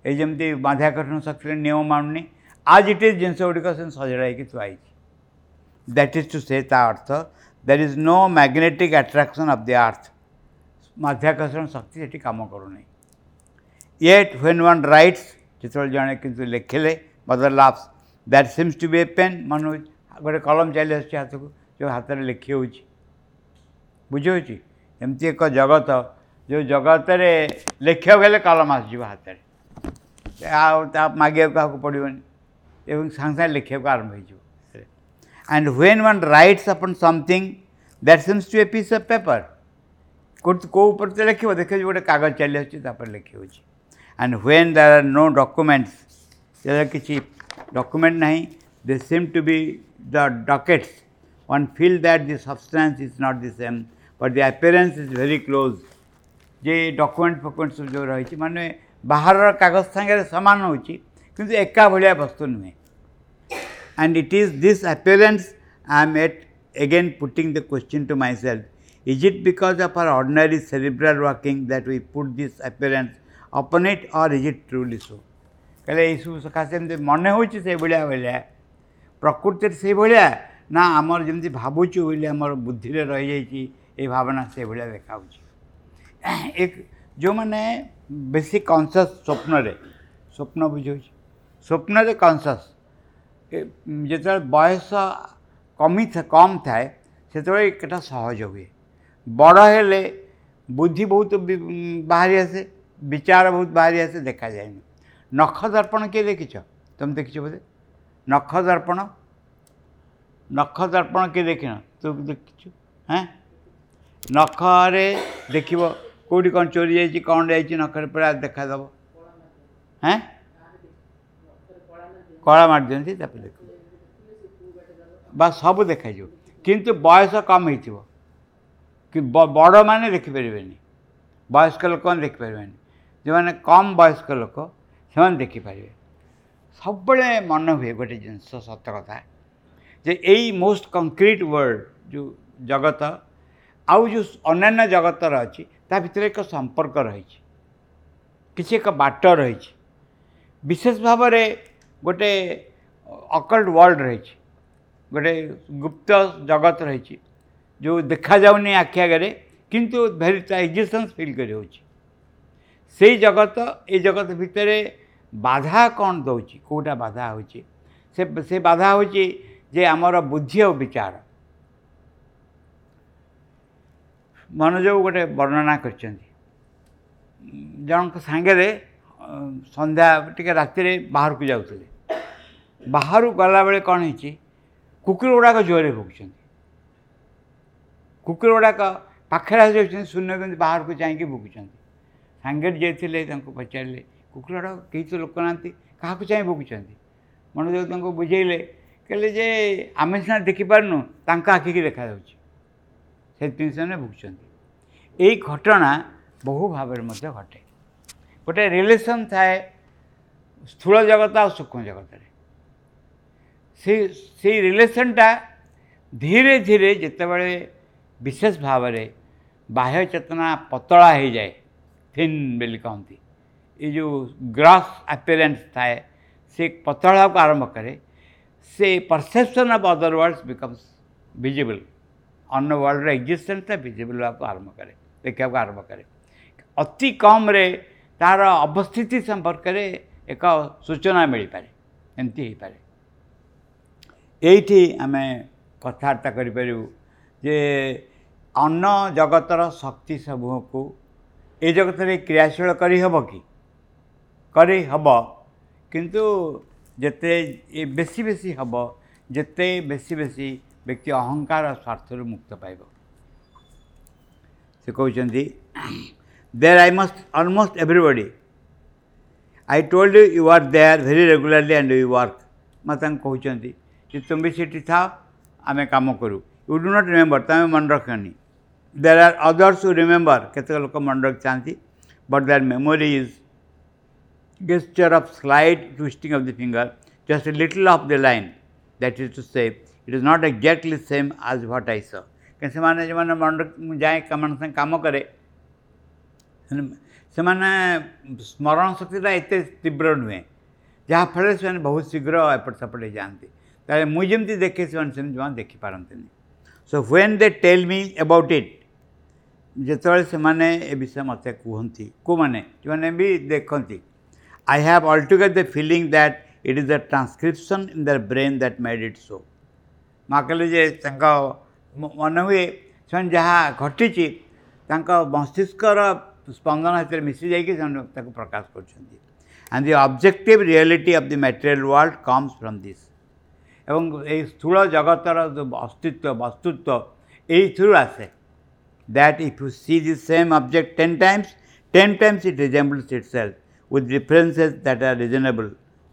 ଏଇ ଯେମିତି ମାଧ୍ୟାକର୍ଷଣ ଶକ୍ତିର ନିୟମ ମାନୁନି, ଆଜ୍ it is ଜିନିଷ ଗୁଡ଼ିକ ସେମିତି ସଜଡ଼ା ହେଇକି ଥୁଆ ହେଇଛି। That is two ସେ, ତା ଅର୍ଥ there is no magnetic attraction of the earth. ମାଧ୍ୟାକର୍ଷଣ ଶକ୍ତି ସେଠି କାମ କରୁନାହିଁ। ୟେଟ୍ when one rights, ଯେତେବେଳେ ଜଣେ କିନ୍ତୁ ଲେଖିଲେ, mother laughs, that seems to be a pen. ମନେ ହେଉଛି ଗୋଟେ କଲମ ଚାଲି ଆସୁଛି ହାତକୁ, ଯେଉଁ ହାତରେ ଲେଖି ହେଉଛି। ବୁଝିହେଉଛି? ଏମିତି ଏକ ଜଗତ ଯେଉଁ ଜଗତରେ ଲେଖିବାକୁ ହେଲେ କଲମ ଆସିଯିବ ହାତରେ, ଆଉ ତା ମାଗିବାକୁ କାହାକୁ ପଡ଼ିବନି, ଏବଂ ସାଙ୍ଗେ ସାଙ୍ଗେ ଲେଖିବାକୁ ଆରମ୍ଭ ହେଇଯିବ। And when one writes upon something that seems to a piece of paper, କେଉଁ ଉପରେ ତ ଲେଖିବ, ଦେଖିବ ଗୋଟେ କାଗଜ ଚାଲି ଆସୁଛି, ତାପରେ ଲେଖି ହେଉଛି। And when there are no documents, ଯେତେବେଳେ କିଛି ଡକୁମେଣ୍ଟ ନାହିଁ, they seem to be the dockets. One feel that the substance is not the same, but the appearance is very close. ଯେ ଡକୁମେଣ୍ଟ ଫକୁମେଣ୍ଟ ସବୁ ଯେଉଁ ରହିଛି, ମାନେ ବାହାରର କାଗଜ ସାଙ୍ଗରେ ସମାନ ହେଉଛି, କିନ୍ତୁ ଏକା ଭଳିଆ ବସ୍ତୁ ନୁହେଁ। And it is this appearance I am at again putting the question to myself, is it because of our ordinary cerebral working that we put this appearance upon it, or is it truly so? କହିଲେ ଏଇସବୁ ସକାଶେ ଏମିତି ମନେ ହେଉଛି ସେଇଭଳିଆ ଭଳିଆ, ପ୍ରକୃତିରେ ସେଇଭଳିଆ ନା ଆମର ଯେମିତି ଭାବୁଛୁ ବୋଲି ଆମର ବୁଦ୍ଧିରେ ରହିଯାଇଛି ଏଇ ଭାବନା ସେଇଭଳିଆ ଦେଖାହେଉଛି? ଏକ ଯେଉଁମାନେ ବେଶୀ କନସିୟସ୍ ସ୍ୱପ୍ନରେ, ସ୍ୱପ୍ନ ବୁଝାଉଛି, ସ୍ୱପ୍ନରେ କନସିୟସ୍, ଯେତେବେଳେ ବୟସ କମ୍ ଥାଏ ସେତେବେଳେ ଏଇଟା ସହଜ ହୁଏ। ବଡ଼ ହେଲେ ବୁଦ୍ଧି ବହୁତ ବାହାରି ଆସେ, ବିଚାର ବହୁତ ବାହାରି ଆସେ, ଦେଖାଯାଏନି। ନଖ ଦର୍ପଣ କିଏ ଦେଖିଛ? ତୁମେ ଦେଖିଛ ବୋଧେ? ନଖ ଦର୍ପଣ, ନଖ ଦର୍ପଣ କିଏ ଦେଖିନ? ତୁ ଦେଖିଛୁ? ହେଁ, ନଖରେ ଦେଖିବ କେଉଁଠି କ'ଣ ଚୋରି ଯାଇଛି, କ'ଣ ଯାଇଛି, ନଖରେ ପୁରା ଦେଖାଦେବ। ହେଁ, କଳା ମାରିଦିଅନ୍ତି, ତାପରେ ଦେଖିବ ବା ସବୁ ଦେଖାଯିବ। କିନ୍ତୁ ବୟସ କମ୍ ହେଇଥିବ କି ବଡ଼ମାନେ ଦେଖିପାରିବେନି, ବୟସ୍କ ଲୋକମାନେ ଦେଖିପାରିବେନି, ଯେଉଁମାନେ କମ୍ ବୟସ୍କ ଲୋକ ସେମାନେ ଦେଖିପାରିବେ। ସବୁବେଳେ ମନେ ହୁଏ ଗୋଟେ ଜିନିଷ, ସତ କଥା, ଯେ ଏଇ ମୋଷ୍ଟ କଂକ୍ରିଟ୍ ୱାର୍ଲଡ଼ ଯେଉଁ ଜଗତ ଆଉ ଯେଉଁ ଅନ୍ୟାନ୍ୟ ଜଗତର ଅଛି, ତା ଭିତରେ ଏକ ସମ୍ପର୍କ ରହିଛି, କିଛି ଏକ ବାଟ ରହିଛି, ବିଶେଷ ଭାବରେ ଗୋଟେ ଅକଲ୍ଟ ୱାର୍ଲଡ଼ ରହିଛି, ଗୋଟେ ଗୁପ୍ତ ଜଗତ ରହିଛି ଯେଉଁ ଦେଖାଯାଉନି ଆଖି ଆଗରେ, କିନ୍ତୁ ଭେରି ତା ଏକ୍ଜିଷ୍ଟେନ୍ସ ଫିଲ୍ କରି ହେଉଛି। ସେଇ ଜଗତ, ଏଇ ଜଗତ ଭିତରେ ବାଧା କ'ଣ ଦେଉଛି, କେଉଁଟା ବାଧା ହେଉଛି? ସେ ବାଧା ହେଉଛି ଯେ ଆମର ବୁଦ୍ଧି ଆଉ ବିଚାର। ମନୋଜ ଗୋଟେ ବର୍ଣ୍ଣନା କରିଛନ୍ତି, ଜଣଙ୍କ ସାଙ୍ଗରେ ସନ୍ଧ୍ୟା ଟିକେ ରାତିରେ ବାହାରକୁ ଯାଉଥିଲେ। ବାହାରକୁ ଗଲାବେଳେ କ'ଣ ହେଇଛି, କୁକୁର ଗୁଡ଼ାକ ଜୋରରେ ଭୁକୁଛନ୍ତି, କୁକୁର ଗୁଡ଼ାକ ପାଖରେ ଆସିଯାଉଛନ୍ତି, ଶୂନ୍ୟ କେମିତି ବାହାରକୁ ଯାଇକି ଭୁକୁଛନ୍ତି। ସାଙ୍ଗରେ ଯିଏ ଥିଲେ ତାଙ୍କୁ ପଚାରିଲେ, କୁକୁର ଗୁଡ଼ାକ କେହି ତ ଲୋକ ନାହାନ୍ତି, କାହାକୁ ଚାହିଁ ଭୁକୁଛନ୍ତି? ମନୋଜ ତାଙ୍କୁ ବୁଝେଇଲେ, କହିଲେ ଯେ ଆମେ ସିନା ଦେଖିପାରୁନୁ, ତାଙ୍କ ଆଖିକି ଦେଖାଯାଉଛି, ସେଥିପାଇଁ ସେମାନେ ଭୁକୁଛନ୍ତି। ଏଇ ଘଟଣା ବହୁ ଭାବରେ ମଧ୍ୟ ଘଟେ। ଗୋଟେ ରିଲେସନ୍ ଥାଏ ସ୍ଥୂଳ ଜଗତ ଆଉ ସୂକ୍ଷ୍ମ ଜଗତରେ। ସେଇ ରିଲେସନ୍ଟା ଧୀରେ ଧୀରେ ଯେତେବେଳେ ବିଶେଷ ଭାବରେ ବାହ୍ୟ ଚେତନା ପତଳା ହେଇଯାଏ, ଥିନ୍ ବୋଲି କହନ୍ତି, ଏ ଯେଉଁ ଗ୍ରସ୍ ଆପିୟରାନ୍ସ ଥାଏ ସେ ପତଳା ହେବାକୁ ଆରମ୍ଭ କରେ, ସେ perception of other worlds becomes visible. ଅନ୍ୟ ୱାର୍ଲଡର ଏକ୍ଜିଷ୍ଟେନ୍ସଟା ଭିଜିବଲ୍ ହେବାକୁ ଆରମ୍ଭ କରେ, ଦେଖିବାକୁ ଆରମ୍ଭ କରେ। ଅତି କମ୍ରେ ତା'ର ଅବସ୍ଥିତି ସମ୍ପର୍କରେ ଏକ ସୂଚନା ମିଳିପାରେ, ଏମିତି ହେଇପାରେ। ଏଇଠି ଆମେ କଥାବାର୍ତ୍ତା କରିପାରିବୁ ଯେ ଅନ୍ୟ ଜଗତର ଶକ୍ତି ସମୂହକୁ ଏ ଜଗତରେ କ୍ରିୟାଶୀଳ କରିହେବ କି? କରିହେବ, କିନ୍ତୁ ଯେତେ ବେଶୀ ବେଶୀ ହେବ, ଯେତେ ବେଶୀ ବେଶୀ ବ୍ୟକ୍ତି ଅହଙ୍କାର ସ୍ୱାର୍ଥରୁ ମୁକ୍ତ ପାଇବ। ସେ କହୁଛନ୍ତି, there I must almost everybody, I told you you are there very regularly and you work. ମା ତାଙ୍କୁ କହୁଛନ୍ତି ଯେ ତୁମେ ବି ସେଠି ଥାଅ, ଆମେ କାମ କରୁ। You do not remember, ତୁମେ ମନେ ରଖନି। There are others who remember, କେତେକ ଲୋକ ମନେ ରଖିଥାନ୍ତି, but their memory is gesture of slight twisting of the finger, just a little off the line. That is to say, it is not exactly same as what I saw. କାରଣ ସେମାନେ ଯେଉଁମାନେ ମନେ ମୁଁ ଯାଏ ସେମାନଙ୍କ ସାଙ୍ଗେ କାମ କରେ, ସେମାନେ ସ୍ମରଣ ଶକ୍ତିଟା ଏତେ ତୀବ୍ର ନୁହେଁ, ଯାହାଫଳରେ ସେମାନେ ବହୁତ ଶୀଘ୍ର ଏପଟ ସେପଟ ହେଇଯାଆନ୍ତି। ତାହେଲେ ମୁଁ ଯେମିତି ଦେଖେ ସେମାନେ ସେମିତି ଜମା ଦେଖିପାରନ୍ତିନି। So when they tell me about it, ଯେତେବେଳେ ସେମାନେ ଏ ବିଷୟ ମୋତେ କୁହନ୍ତି, କେଉଁମାନେ ଯେଉଁମାନେ ବି ଦେଖନ୍ତି, I have altogether the feeling that it is the transcription in their brain that made it so. ମା କହିଲେ ଯେ ତାଙ୍କ ମନେ ହୁଏ ସେମାନେ ଯାହା ଘଟିଛି ତାଙ୍କ ମସ୍ତିଷ୍କର ସ୍ପନ୍ଦନ ସେଥିରେ ମିଶି ଯାଇକି ସେମାନେ ତାକୁ ପ୍ରକାଶ କରୁଛନ୍ତି। And the objective reality of the material world comes from this. ଏବଂ ଏଇ ସ୍ଥୂଳ ଜଗତର ଯେଉଁ ଅସ୍ତିତ୍ୱ ବସ୍ତୁତ୍ୱ ଏଇଥିରୁ ଆସେ। That if you see the same object 10 times, 10 times it resembles itself with differences that are reasonable,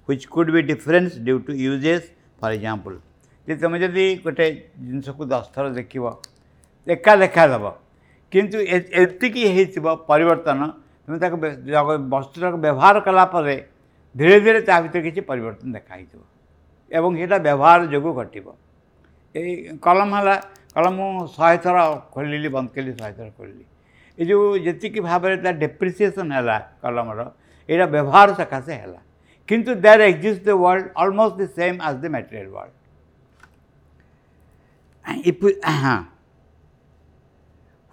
which could be difference due to uses, for example. ଯେ ତୁମେ ଯଦି ଗୋଟେ ଜିନିଷକୁ 10 ଥର ଦେଖିବ ଏକା ଦେଖାଦେବ, କିନ୍ତୁ ଏତିକି ହେଇଥିବ ପରିବର୍ତ୍ତନ, ତୁମେ ତାକୁ ବସ୍ତୁଟାକୁ ବ୍ୟବହାର କଲା ପରେ ଧୀରେ ଧୀରେ ତା ଭିତରେ କିଛି ପରିବର୍ତ୍ତନ ଦେଖା ହେଇଥିବ ଏବଂ ସେଇଟା ବ୍ୟବହାର ଯୋଗୁଁ ଘଟିବ। ଏଇ କଲମ ହେଲା, କଲମ ମୁଁ 100 ଥର ଖୋଲିଲି, ବନ୍ଦ କଲି, 100 ଥର ଖୋଲିଲି, ଏ ଯେଉଁ ଯେତିକି ଭାବରେ ତା ଡେପ୍ରିସିଏସନ୍ ହେଲା କଲମର, ଏଇଟା ବ୍ୟବହାର ସକାଶେ ହେଲା। କିନ୍ତୁ there exist the world almost the same as the material world. If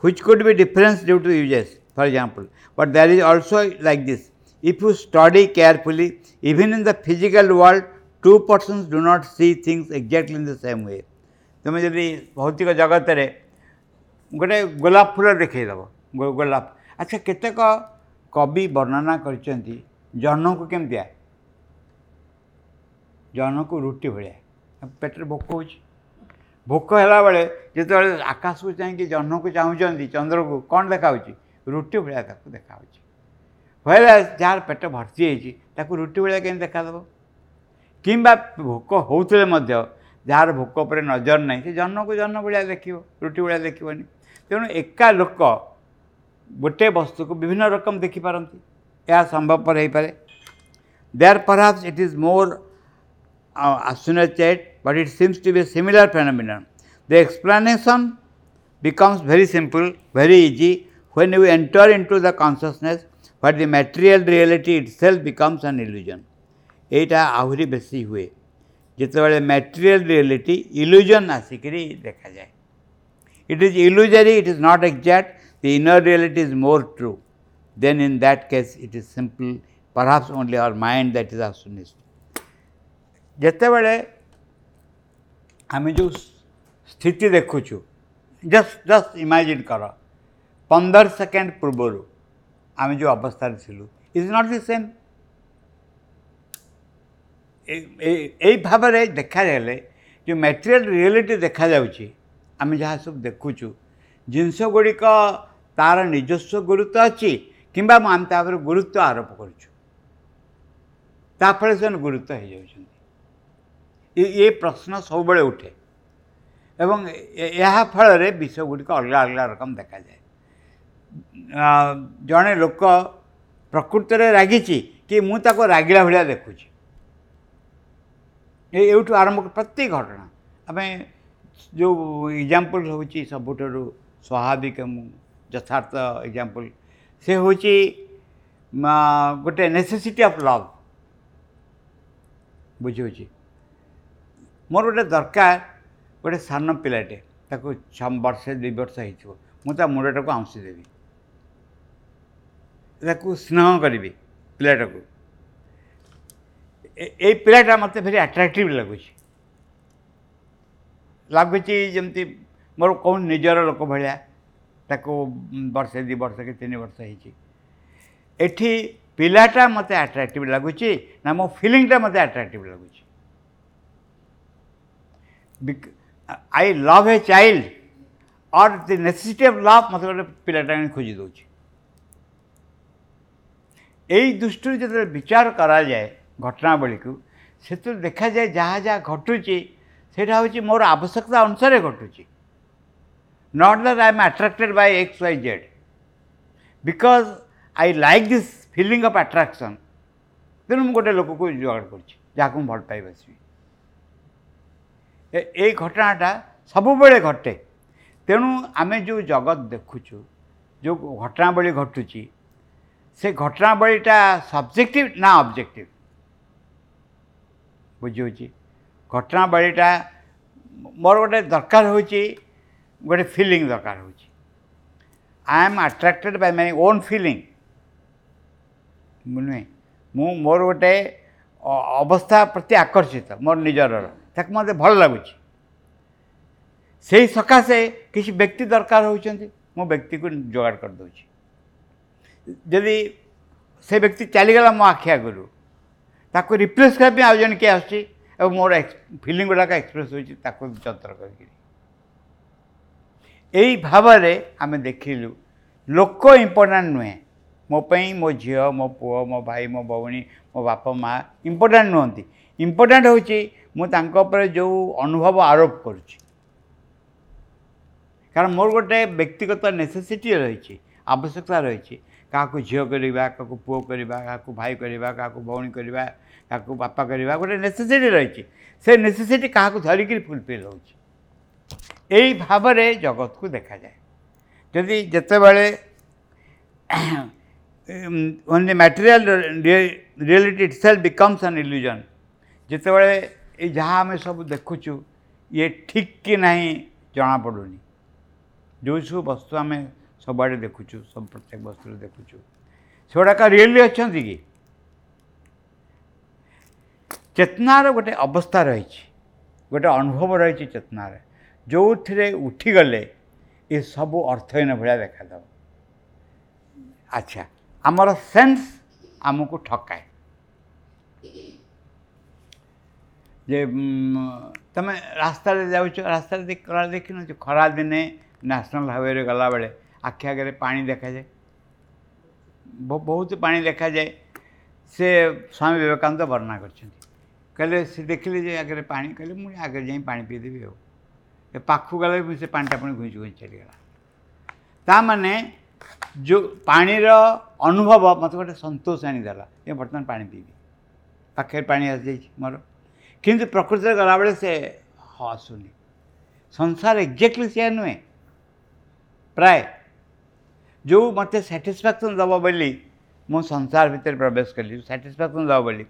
which could be difference due to uses, for example. But there is also like this, if you study carefully, even in the physical world, two persons do not see things exactly in the same way. ତୁମେ ଯଦି ଭୌତିକ ଜଗତରେ ଗୋଟେ ଗୋଲାପ ଫୁଲ ଦେଖେଇଦେବ, ଗୋଲାପ, ଆଚ୍ଛା କେତେକ କବି ବର୍ଣ୍ଣନା କରିଛନ୍ତି ଜହ୍ନକୁ କେମିତିଆ, ଜହ୍ନକୁ ରୁଟି ଭଳିଆ, ପେଟରେ ଭୋକ ହେଉଛି, ଭୋକ ହେଲାବେଳେ ଯେତେବେଳେ ଆକାଶକୁ ଚାହିଁକି ଜହ୍ନକୁ ଚାହୁଁଛନ୍ତି, ଚନ୍ଦ୍ରକୁ କ'ଣ ଦେଖାହେଉଛି? ରୁଟି ଭଳିଆ ତାକୁ ଦେଖାହେଉଛି। ହ୍ୱେରାଜ୍ ଯାହାର ପେଟ ଭର୍ତ୍ତି ହେଇଛି ତାକୁ ରୁଟି ଭଳିଆ କେମିତି ଦେଖାଦେବ? କିମ୍ବା ଭୋକ ହେଉଥିଲେ ମଧ୍ୟ ଯାହାର ଭୋକ ଉପରେ ନଜର ନାହିଁ ସେ ଜହ୍ନକୁ ଜହ୍ନ ଭଳିଆ ଦେଖିବ, ରୁଟି ଭଳିଆ ଦେଖିବନି। ତେଣୁ ଏକା ଲୋକ ଗୋଟେ ବସ୍ତୁକୁ ବିଭିନ୍ନ ରକମ ଦେଖିପାରନ୍ତି, ଏହା ସମ୍ଭବପର ହେଇପାରେ। There perhaps it is more associated, but it seems to be a similar phenomenon. The explanation becomes very simple, very easy when you enter into the consciousness where the material reality itself becomes an illusion. ଏଇଟା ଆହୁରି ବେଶୀ ହୁଏ ଯେତେବେଳେ material reality ଇଲୁଜନ୍ ଆସିକିରି ଦେଖାଯାଏ। It is illusory, it is not exact, the inner reality is more true. Then in that case it is simple, perhaps only our mind that is astonished. ଯେତେବେଳେ ଆମେ ଯେଉଁ ସ୍ଥିତି ଦେଖୁଛୁ, ଜଷ୍ଟ ଇମାଜିନ୍ କର 15 second ପୂର୍ବରୁ ଆମେ ଯେଉଁ ଅବସ୍ଥାରେ ଥିଲୁ, is not the same. ଏଇ ଭାବରେ ଦେଖାଗଲେ ଯେଉଁ ମ୍ୟାଟେରିଆଲ ରିଆଲିଟି ଦେଖାଯାଉଛି, ଆମେ ଯାହା ସବୁ ଦେଖୁଛୁ, ଜିନିଷ ଗୁଡ଼ିକ ତା'ର ନିଜସ୍ୱ ଗୁରୁତ୍ୱ ଅଛି କିମ୍ବା ଆମେ ତା ଉପରେ ଗୁରୁତ୍ୱ ଆରୋପ କରୁଛୁ, ତା ଫଳରେ ସେମାନେ ଗୁରୁତ୍ୱ ହେଇଯାଉଛନ୍ତି। ଏ ପ୍ରଶ୍ନ ସବୁବେଳେ ଉଠେ ଏବଂ ଏହା ଫଳରେ ବିଷୟ ଗୁଡ଼ିକ ଅଲଗା ଅଲଗା ରକମ ଦେଖାଯାଏ। ଜଣେ ଲୋକ ପ୍ରକୃତରେ ରାଗିଛି କି ମୁଁ ତାକୁ ରାଗିଲା ଭଳିଆ ଦେଖୁଛି, ଏଇଠୁ ଆରମ୍ଭ ପ୍ରତ୍ୟେକ ଘଟଣା। ଆମେ ଯେଉଁ ଏକ୍ଜାମ୍ପଲ୍ ହେଉଛି ସବୁଠାରୁ ସ୍ୱାଭାବିକ ଯଥାର୍ଥ ଏକ୍ଜାମ୍ପଲ୍, ସେ ହେଉଛି ଗୋଟେ ନେସେସିଟି ଅଫ୍ ଲଭ୍। ବୁଝିହେଉଛି? ମୋର ଗୋଟେ ଦରକାର, ଗୋଟେ ସାନ ପିଲାଟେ, ତାକୁ 6 ବର୍ଷ 2 ବର୍ଷ ହେଇଥିବ, ମୁଁ ତା ମୁଣ୍ଡଟାକୁ ଆଉଁସି ଦେବି, ତାକୁ ସ୍ନେହ କରିବି ପିଲାଟାକୁ। ଏଇ ପିଲାଟା ମୋତେ ଭେରି ଆଟ୍ରାକ୍ଟିଭ୍ ଲାଗୁଛି, ଲାଗୁଛି ଯେମିତି ମୋର କେଉଁ ନିଜର ଲୋକ ଭଳିଆ। ତାକୁ ବର୍ଷେ 2 ବର୍ଷ କି 3 ବର୍ଷ ହେଇଛି। ଏଠି ପିଲାଟା ମୋତେ ଆଟ୍ରାକ୍ଟିଭ୍ ଲାଗୁଛି ନା ମୋ ଫିଲିଂଟା ମୋତେ ଆଟ୍ରାକ୍ଟିଭ୍ ଲାଗୁଛି? I love a child or the necessity of love ମୋତେ ଗୋଟେ ପିଲାଟା ଆଣି ଖୋଜି ଦେଉଛି। ଏଇ ଦୃଷ୍ଟିରୁ ଯେତେବେଳେ ବିଚାର କରାଯାଏ ଘଟଣାବଳୀକୁ, ସେଥିରୁ ଦେଖାଯାଏ ଯାହା ଯାହା ଘଟୁଛି ସେଇଟା ହେଉଛି ମୋର ଆବଶ୍ୟକତା ଅନୁସାରେ ଘଟୁଛି। Not that I am attracted by X Y Z, because I like this feeling of attraction. ତେଣୁ ମୁଁ ଗୋଟେ ଲୋକକୁ ଯୋଗାଡ଼ କରୁଛି ଯାହାକୁ ମୁଁ ଭଲ ପାଇ ବସିବି। ଏଇ ଘଟଣାଟା ସବୁବେଳେ ଘଟେ। ତେଣୁ ଆମେ ଯେଉଁ ଜଗତ ଦେଖୁଛୁ, ଯେଉଁ ଘଟଣାବଳୀ ଘଟୁଛି, ସେ ଘଟଣାବଳୀଟା ସବଜେକ୍ଟିଭ୍ ନା ଅବଜେକ୍ଟିଭ୍? ବୁଝିହେଉଛି? ଘଟଣାବଳୀଟା ମୋର ଗୋଟେ ଦରକାର ହେଉଛି, ଗୋଟେ ଫିଲିଂ ଦରକାର ହେଉଛି। I am attracted by my own feeling ନୁହେଁ, ମୁଁ ମୋର ଗୋଟେ ଅବସ୍ଥା ପ୍ରତି ଆକର୍ଷିତ, ମୋର ନିଜର, ତାକୁ ମୋତେ ଭଲ ଲାଗୁଛି। ସେଇ ସକାଶେ କିଛି ବ୍ୟକ୍ତି ଦରକାର ହେଉଛନ୍ତି, ମୁଁ ବ୍ୟକ୍ତିକୁ ଯୋଗାଡ଼ କରିଦେଉଛି। ଯଦି ସେ ବ୍ୟକ୍ତି ଚାଲିଗଲା ମୋ ଆଖି ଆଗରୁ, ତାକୁ ରିପ୍ଲେସ୍ କରିବା ପାଇଁ ଆଉ ଜଣେ କିଏ ଆସୁଛି ଏବଂ ମୋର ଫିଲିଂ ଗୁଡ଼ାକ ଏକ୍ସପ୍ରେସ୍ ହେଉଛି ତାକୁ ଯନ୍ତ୍ର କରିକିରି। ଏଇ ଭାବରେ ଆମେ ଦେଖିଲୁ ଲୋକ ଇମ୍ପୋର୍ଟାଣ୍ଟ ନୁହେଁ ମୋ ପାଇଁ, ମୋ ଝିଅ, ମୋ ପୁଅ, ମୋ ଭାଇ, ମୋ ଭଉଣୀ, ମୋ ବାପା ମା ଇମ୍ପୋର୍ଟାଣ୍ଟ ନୁହନ୍ତି। ଇମ୍ପୋର୍ଟାଣ୍ଟ ହେଉଛି ମୁଁ ତାଙ୍କ ଉପରେ ଯେଉଁ ଅନୁଭବ ଆରୋପ କରୁଛି। କାରଣ ମୋର ଗୋଟେ ବ୍ୟକ୍ତିଗତ ନେସେସିଟି ରହିଛି, ଆବଶ୍ୟକତା ରହିଛି, କାହାକୁ ଝିଅ କରିବା, କାହାକୁ ପୁଅ କରିବା, କାହାକୁ ଭାଇ କରିବା, କାହାକୁ ଭଉଣୀ କରିବା, କାହାକୁ ବାପା କରିବା, ଗୋଟେ ନେସେସିଟି ରହିଛି। ସେ ନେସେସିଟି କାହାକୁ ଧରିକିରି ଫୁଲଫିଲ୍ ହେଉଛି। ଏଇ ଭାବରେ ଜଗତକୁ ଦେଖାଯାଏ। ଯଦି ଯେତେବେଳେ when the material reality itself becomes an illusion, ଯେତେବେଳେ ଏଇ ଯାହା ଆମେ ସବୁ ଦେଖୁଛୁ ଇଏ ଠିକ୍ କି ନାହିଁ ଜଣାପଡ଼ୁନି। ଯେଉଁ ସବୁ ବସ୍ତୁ ଆମେ ସବୁଆଡ଼େ ଦେଖୁଛୁ, ସବୁ ପ୍ରତ୍ୟେକ ବସ୍ତୁରେ ଦେଖୁଛୁ, ସେଗୁଡ଼ାକ ରିଏଲି ଅଛନ୍ତି କି? ଚେତନାର ଗୋଟେ ଅବସ୍ଥା ରହିଛି, ଗୋଟେ ଅନୁଭବ ରହିଛି ଚେତନାରେ, ଯେଉଁଥିରେ ଉଠିଗଲେ ଏସବୁ ଅର୍ଥହୀନ ଭଳିଆ ଦେଖାଦେବ। ଆଚ୍ଛା, ଆମର ସେନ୍ସ ଆମକୁ ଠକାଏ। ଯେ ତୁମେ ରାସ୍ତାରେ ଯାଉଛ, ରାସ୍ତାରେ ଦେଖିନ ଯେ ଖରାଦିନେ ନ୍ୟାସନାଲ୍ ହାଇୱେରେ ଗଲାବେଳେ ଆଖି ଆଗରେ ପାଣି ଦେଖାଯାଏ, ବହୁତ ପାଣି ଦେଖାଯାଏ। ସେ ସ୍ୱାମୀ ବିବେକାନନ୍ଦ ବର୍ଣ୍ଣନା କରିଛନ୍ତି। କହିଲେ ସେ ଦେଖିଲେ ଯେ ଆଗରେ ପାଣି, କହିଲେ ମୁଁ ଆଗରେ ଯାଇ ପାଣି ପିଇଦେବି। ଆଉ ଏ ପାଖକୁ ଗଲେ ବି ସେ ପାଣିଟା ପୁଣି ଘୁଞ୍ଚି ଘୁଞ୍ଚି ଚାଲିଗଲା। ତା ମାନେ ଯେଉଁ ପାଣିର ଅନୁଭବ ମୋତେ ଗୋଟେ ସନ୍ତୋଷ ଆଣିଦେଲା ଯେ ବର୍ତ୍ତମାନ ପାଣି ପିଇବି, ପାଖରେ ପାଣି ଆସିଯାଇଛି ମୋର। କିନ୍ତୁ ପ୍ରକୃତିରେ ଗଲାବେଳେ ସେ ଆସୁନି। ସଂସାର ଏକ୍ଜାକ୍ଟଲି ସେୟା ନୁହେଁ। ପ୍ରାୟ ଯେଉଁ ମୋତେ ସାଟିସ୍ଫ୍ୟାକ୍ସନ୍ ଦେବ ବୋଲି ମୁଁ ସଂସାର ଭିତରେ ପ୍ରବେଶ କଲି, ସାଟିସ୍ଫ୍ୟାକ୍ସନ୍ ଦେବ ବୋଲି,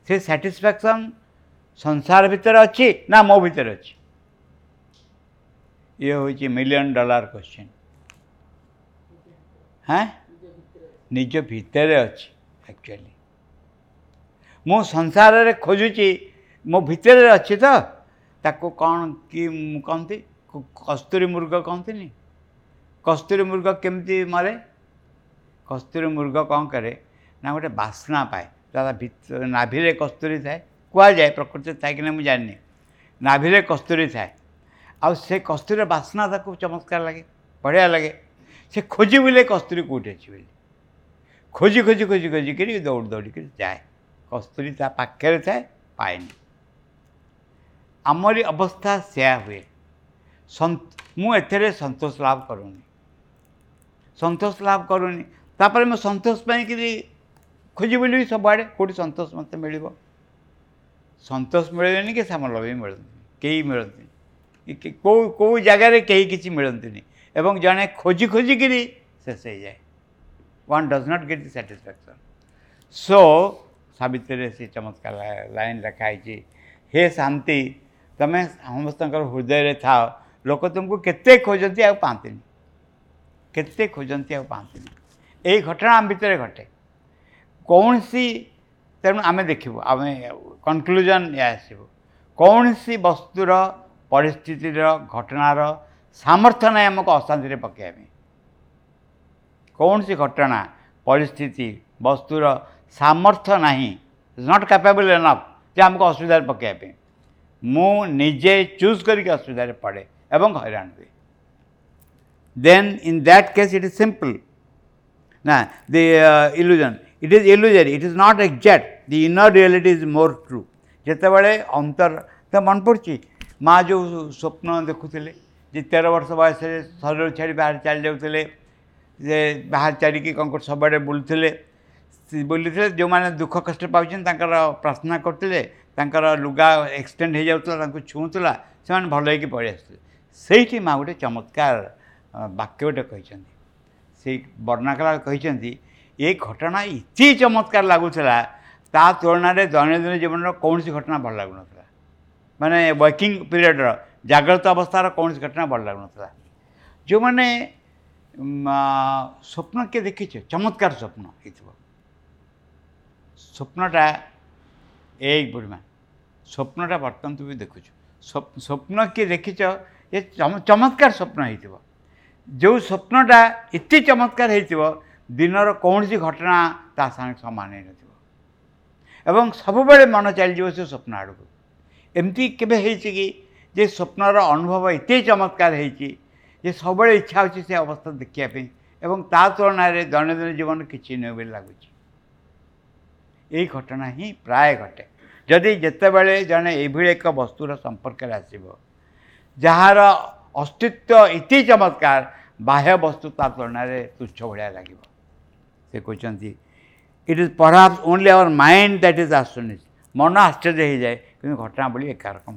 ସେ ସାଟିସ୍ଫ୍ୟାକ୍ସନ୍ ସଂସାର ଭିତରେ ଅଛି ନା ମୋ ଭିତରେ ଅଛି? ଇଏ ହେଉଛି $1 ମିଲିୟନ୍ କ୍ୱେଶ୍ଚିନ୍। ହଁ, ନିଜ ଭିତରେ ଅଛି। ଆକ୍ଚୁଆଲି ମୁଁ ସଂସାରରେ ଖୋଜୁଛି, ମୋ ଭିତରେ ଅଛି ତ। ତାକୁ କ'ଣ କି କହନ୍ତି, କସ୍ତୁରୀ ମୃଗ କହନ୍ତିନି? କସ୍ତୁରୀ ମୃଗ କେମିତି ମରେ? କସ୍ତୁରୀ ମୃଗ କ'ଣ କରେ ନା ଗୋଟେ ବାସ୍ନା ପାଏ, ତା ନାଭିରେ କସ୍ତୁରୀ ଥାଏ, କୁହାଯାଏ, ପ୍ରକୃତିରେ ଥାଏ କି ନା ମୁଁ ଜାଣିନି, ନାଭିରେ କସ୍ତୁରୀ ଥାଏ। ଆଉ ସେ କସ୍ତୁରୀର ବାସ୍ନା ତାକୁ ଚମତ୍କାର ଲାଗେ, ବଢ଼ିଆ ଲାଗେ। ସେ ଖୋଜି ବୁଲେ କସ୍ତୁରୀ କେଉଁଠି ଅଛି ବୋଲି, ଖୋଜି ଖୋଜି ଖୋଜି ଖୋଜିକିରି ଦୌଡ଼ି ଦୌଡ଼ିକିରି ଯାଏ। କସ୍ତୁରୀ ତା ପାଖରେ ଥାଏ, ପାଏନି। ଆମରି ଅବସ୍ଥା ସେୟା ହୁଏ। ମୁଁ ଏଥିରେ ସନ୍ତୋଷ ଲାଭ କରୁନି, ସନ୍ତୋଷ ଲାଭ କରୁନି। ତାପରେ ମୁଁ ସନ୍ତୋଷ ପାଇଁକିରି ଖୋଜି ବୁଲିବି ସବୁଆଡ଼େ, କେଉଁଠି ସନ୍ତୋଷ ମୋତେ ମିଳିବ। ସନ୍ତୋଷ ମିଳିବେନି କି ସାମଲ ବି ମିଳନ୍ତିନି, କେହି ମିଳନ୍ତିନି। କେଉଁ କେଉଁ ଜାଗାରେ କେହି କିଛି ମିଳନ୍ତିନି ଏବଂ ଜଣେ ଖୋଜି ଖୋଜିକିରି ଶେଷ ହେଇଯାଏ। One does not get the satisfaction. So ସାବିତ୍ରୀରେ ସେ ଚମତ୍କାର ଲାଇନ୍ ଲେଖା ହେଇଛି, ହେ ଶାନ୍ତି, ତୁମେ ସମସ୍ତଙ୍କର ହୃଦୟରେ ଥାଅ, ଲୋକ ତୁମକୁ କେତେ ଖୋଜନ୍ତି ଆଉ ପାଆନ୍ତିନି, କେତେ ଖୋଜନ୍ତି ଆଉ ପାଆନ୍ତିନି। ଏଇ ଘଟଣା ଆମ ଭିତରେ ଘଟେ କୌଣସି। ତେଣୁ ଆମେ ଦେଖିବୁ, ଆମେ କନକ୍ଲୁଜନ୍ ଏହା ଆସିବ, କୌଣସି ବସ୍ତୁର, ପରିସ୍ଥିତିର, ଘଟଣାର ସାମର୍ଥ୍ୟ ନାହିଁ ଆମକୁ ଅଶାନ୍ତିରେ ପକାଇବା ପାଇଁ। କୌଣସି ଘଟଣା, ପରିସ୍ଥିତି, ବସ୍ତୁର ସାମର୍ଥ୍ୟ ନାହିଁ, not capable enough ଯେ ଆମକୁ ଅସୁବିଧାରେ ପକାଇବା ପାଇଁ। ମୁଁ ନିଜେ ଚୁଜ୍ କରିକି ଅସୁବିଧାରେ ପଡ଼େ ଏବଂ ହଇରାଣ ହୁଏ। Then in that case it is simple ନା, the illusion, it is illusory, it is not exact, the inner reality is more true. ଯେତେବେଳେ ଅନ୍ତର ତ ମନେ ପଡ଼ୁଛି, ମା ଯେଉଁ ସ୍ୱପ୍ନ ଦେଖୁଥିଲେ ଯେ 13 ବର୍ଷ ବୟସରେ ଶରୀର ଛାଡ଼ି ବାହାରେ ଚାଲି ଯାଉଥିଲେ, ଯେ ବାହାରେ ଚାଲିକି କ'ଣ କରୁଥିଲେ, ସବୁଆଡ଼େ ବୁଲୁଥିଲେ, ବୁଲୁଥିଲେ, ଯେଉଁମାନେ ଦୁଃଖ କଷ୍ଟ ପାଉଛନ୍ତି ତାଙ୍କର ପ୍ରାର୍ଥନା କରୁଥିଲେ, ତାଙ୍କର ଲୁଗା ଏକ୍ସଟେଣ୍ଡ ହେଇଯାଉଥିଲା, ତାଙ୍କୁ ଛୁଉଁଥିଲା, ସେମାନେ ଭଲ ହେଇକି ପଳେଇ ଆସୁଥିଲେ। ସେଇଠି ମା ଗୋଟେ ଚମତ୍କାର ବାକ୍ୟ ଗୋଟେ କହିଛନ୍ତି, ସେଇ ବର୍ଣ୍ଣନା କଲା କହିଛନ୍ତି, ଏ ଘଟଣା ଏତେ ଚମତ୍କାର ଲାଗୁଥିଲା, ତା ତୁଳନାରେ ଦୈନନ୍ଦିନ ଜୀବନର କୌଣସି ଘଟଣା ଭଲ ଲାଗୁନଥିଲା। ମାନେ ୱାର୍କିଂ ପିରିୟଡ଼ର ଜାଗ୍ରତ ଅବସ୍ଥାର କୌଣସି ଘଟଣା ଭଲ ଲାଗୁନଥିଲା। ଯେଉଁମାନେ ସ୍ୱପ୍ନ କିଏ ଦେଖିଛ, ଚମତ୍କାର ସ୍ୱପ୍ନ ହେଇଥିବ, ସ୍ୱପ୍ନଟା ଏଇ ବୁଢ଼ୀମା, ସ୍ୱପ୍ନଟା ବର୍ତ୍ତମାନ ତୁ ବି ଦେଖୁଛୁ, ସ୍ୱପ୍ନ କିଏ ଦେଖିଛ ଏ ଚମତ୍କାର ସ୍ୱପ୍ନ ହେଇଥିବ, ଯେଉଁ ସ୍ୱପ୍ନଟା ଏତେ ଚମତ୍କାର ହେଇଥିବ ଦିନର କୌଣସି ଘଟଣା ତା ସାଙ୍ଗେ ସମାନ ହେଇନଥିବ ଏବଂ ସବୁବେଳେ ମନ ଚାଲିଯିବ ସେ ସ୍ୱପ୍ନ ଆଡ଼କୁ। ଏମିତି କେବେ ହେଇଛି କି ଯେ ସ୍ୱପ୍ନର ଅନୁଭବ ଏତେ ଚମତ୍କାର ହେଇଛି ଯେ ସବୁବେଳେ ଇଚ୍ଛା ହେଉଛି ସେ ଅବସ୍ଥା ଦେଖିବା ପାଇଁ ଏବଂ ତା ତୁଳନାରେ ଦୈନନ୍ଦିନ ଜୀବନ କିଛି ନୁହେଁ ବୋଲି ଲାଗୁଛି। ଏଇ ଘଟଣା ହିଁ ପ୍ରାୟ ଘଟେ। ଯଦି ଯେତେବେଳେ ଜଣେ ଏଇଭଳି ଏକ ବସ୍ତୁର ସମ୍ପର୍କରେ ଆସିବ ଯାହାର ଅସ୍ତିତ୍ୱ ଏତେ ଚମତ୍କାର, ବାହ୍ୟ ବସ୍ତୁ ତା ତୁଳନାରେ ତୁଚ୍ଛ ଭଳିଆ ଲାଗିବ। ସେ କହୁଛନ୍ତି it is perhaps only our mind that is astonished. ମନ ଆଶ୍ଚର୍ଯ୍ୟ ହେଇଯାଏ, କିନ୍ତୁ ଘଟଣା ବୋଲି ଏକା ରକମ।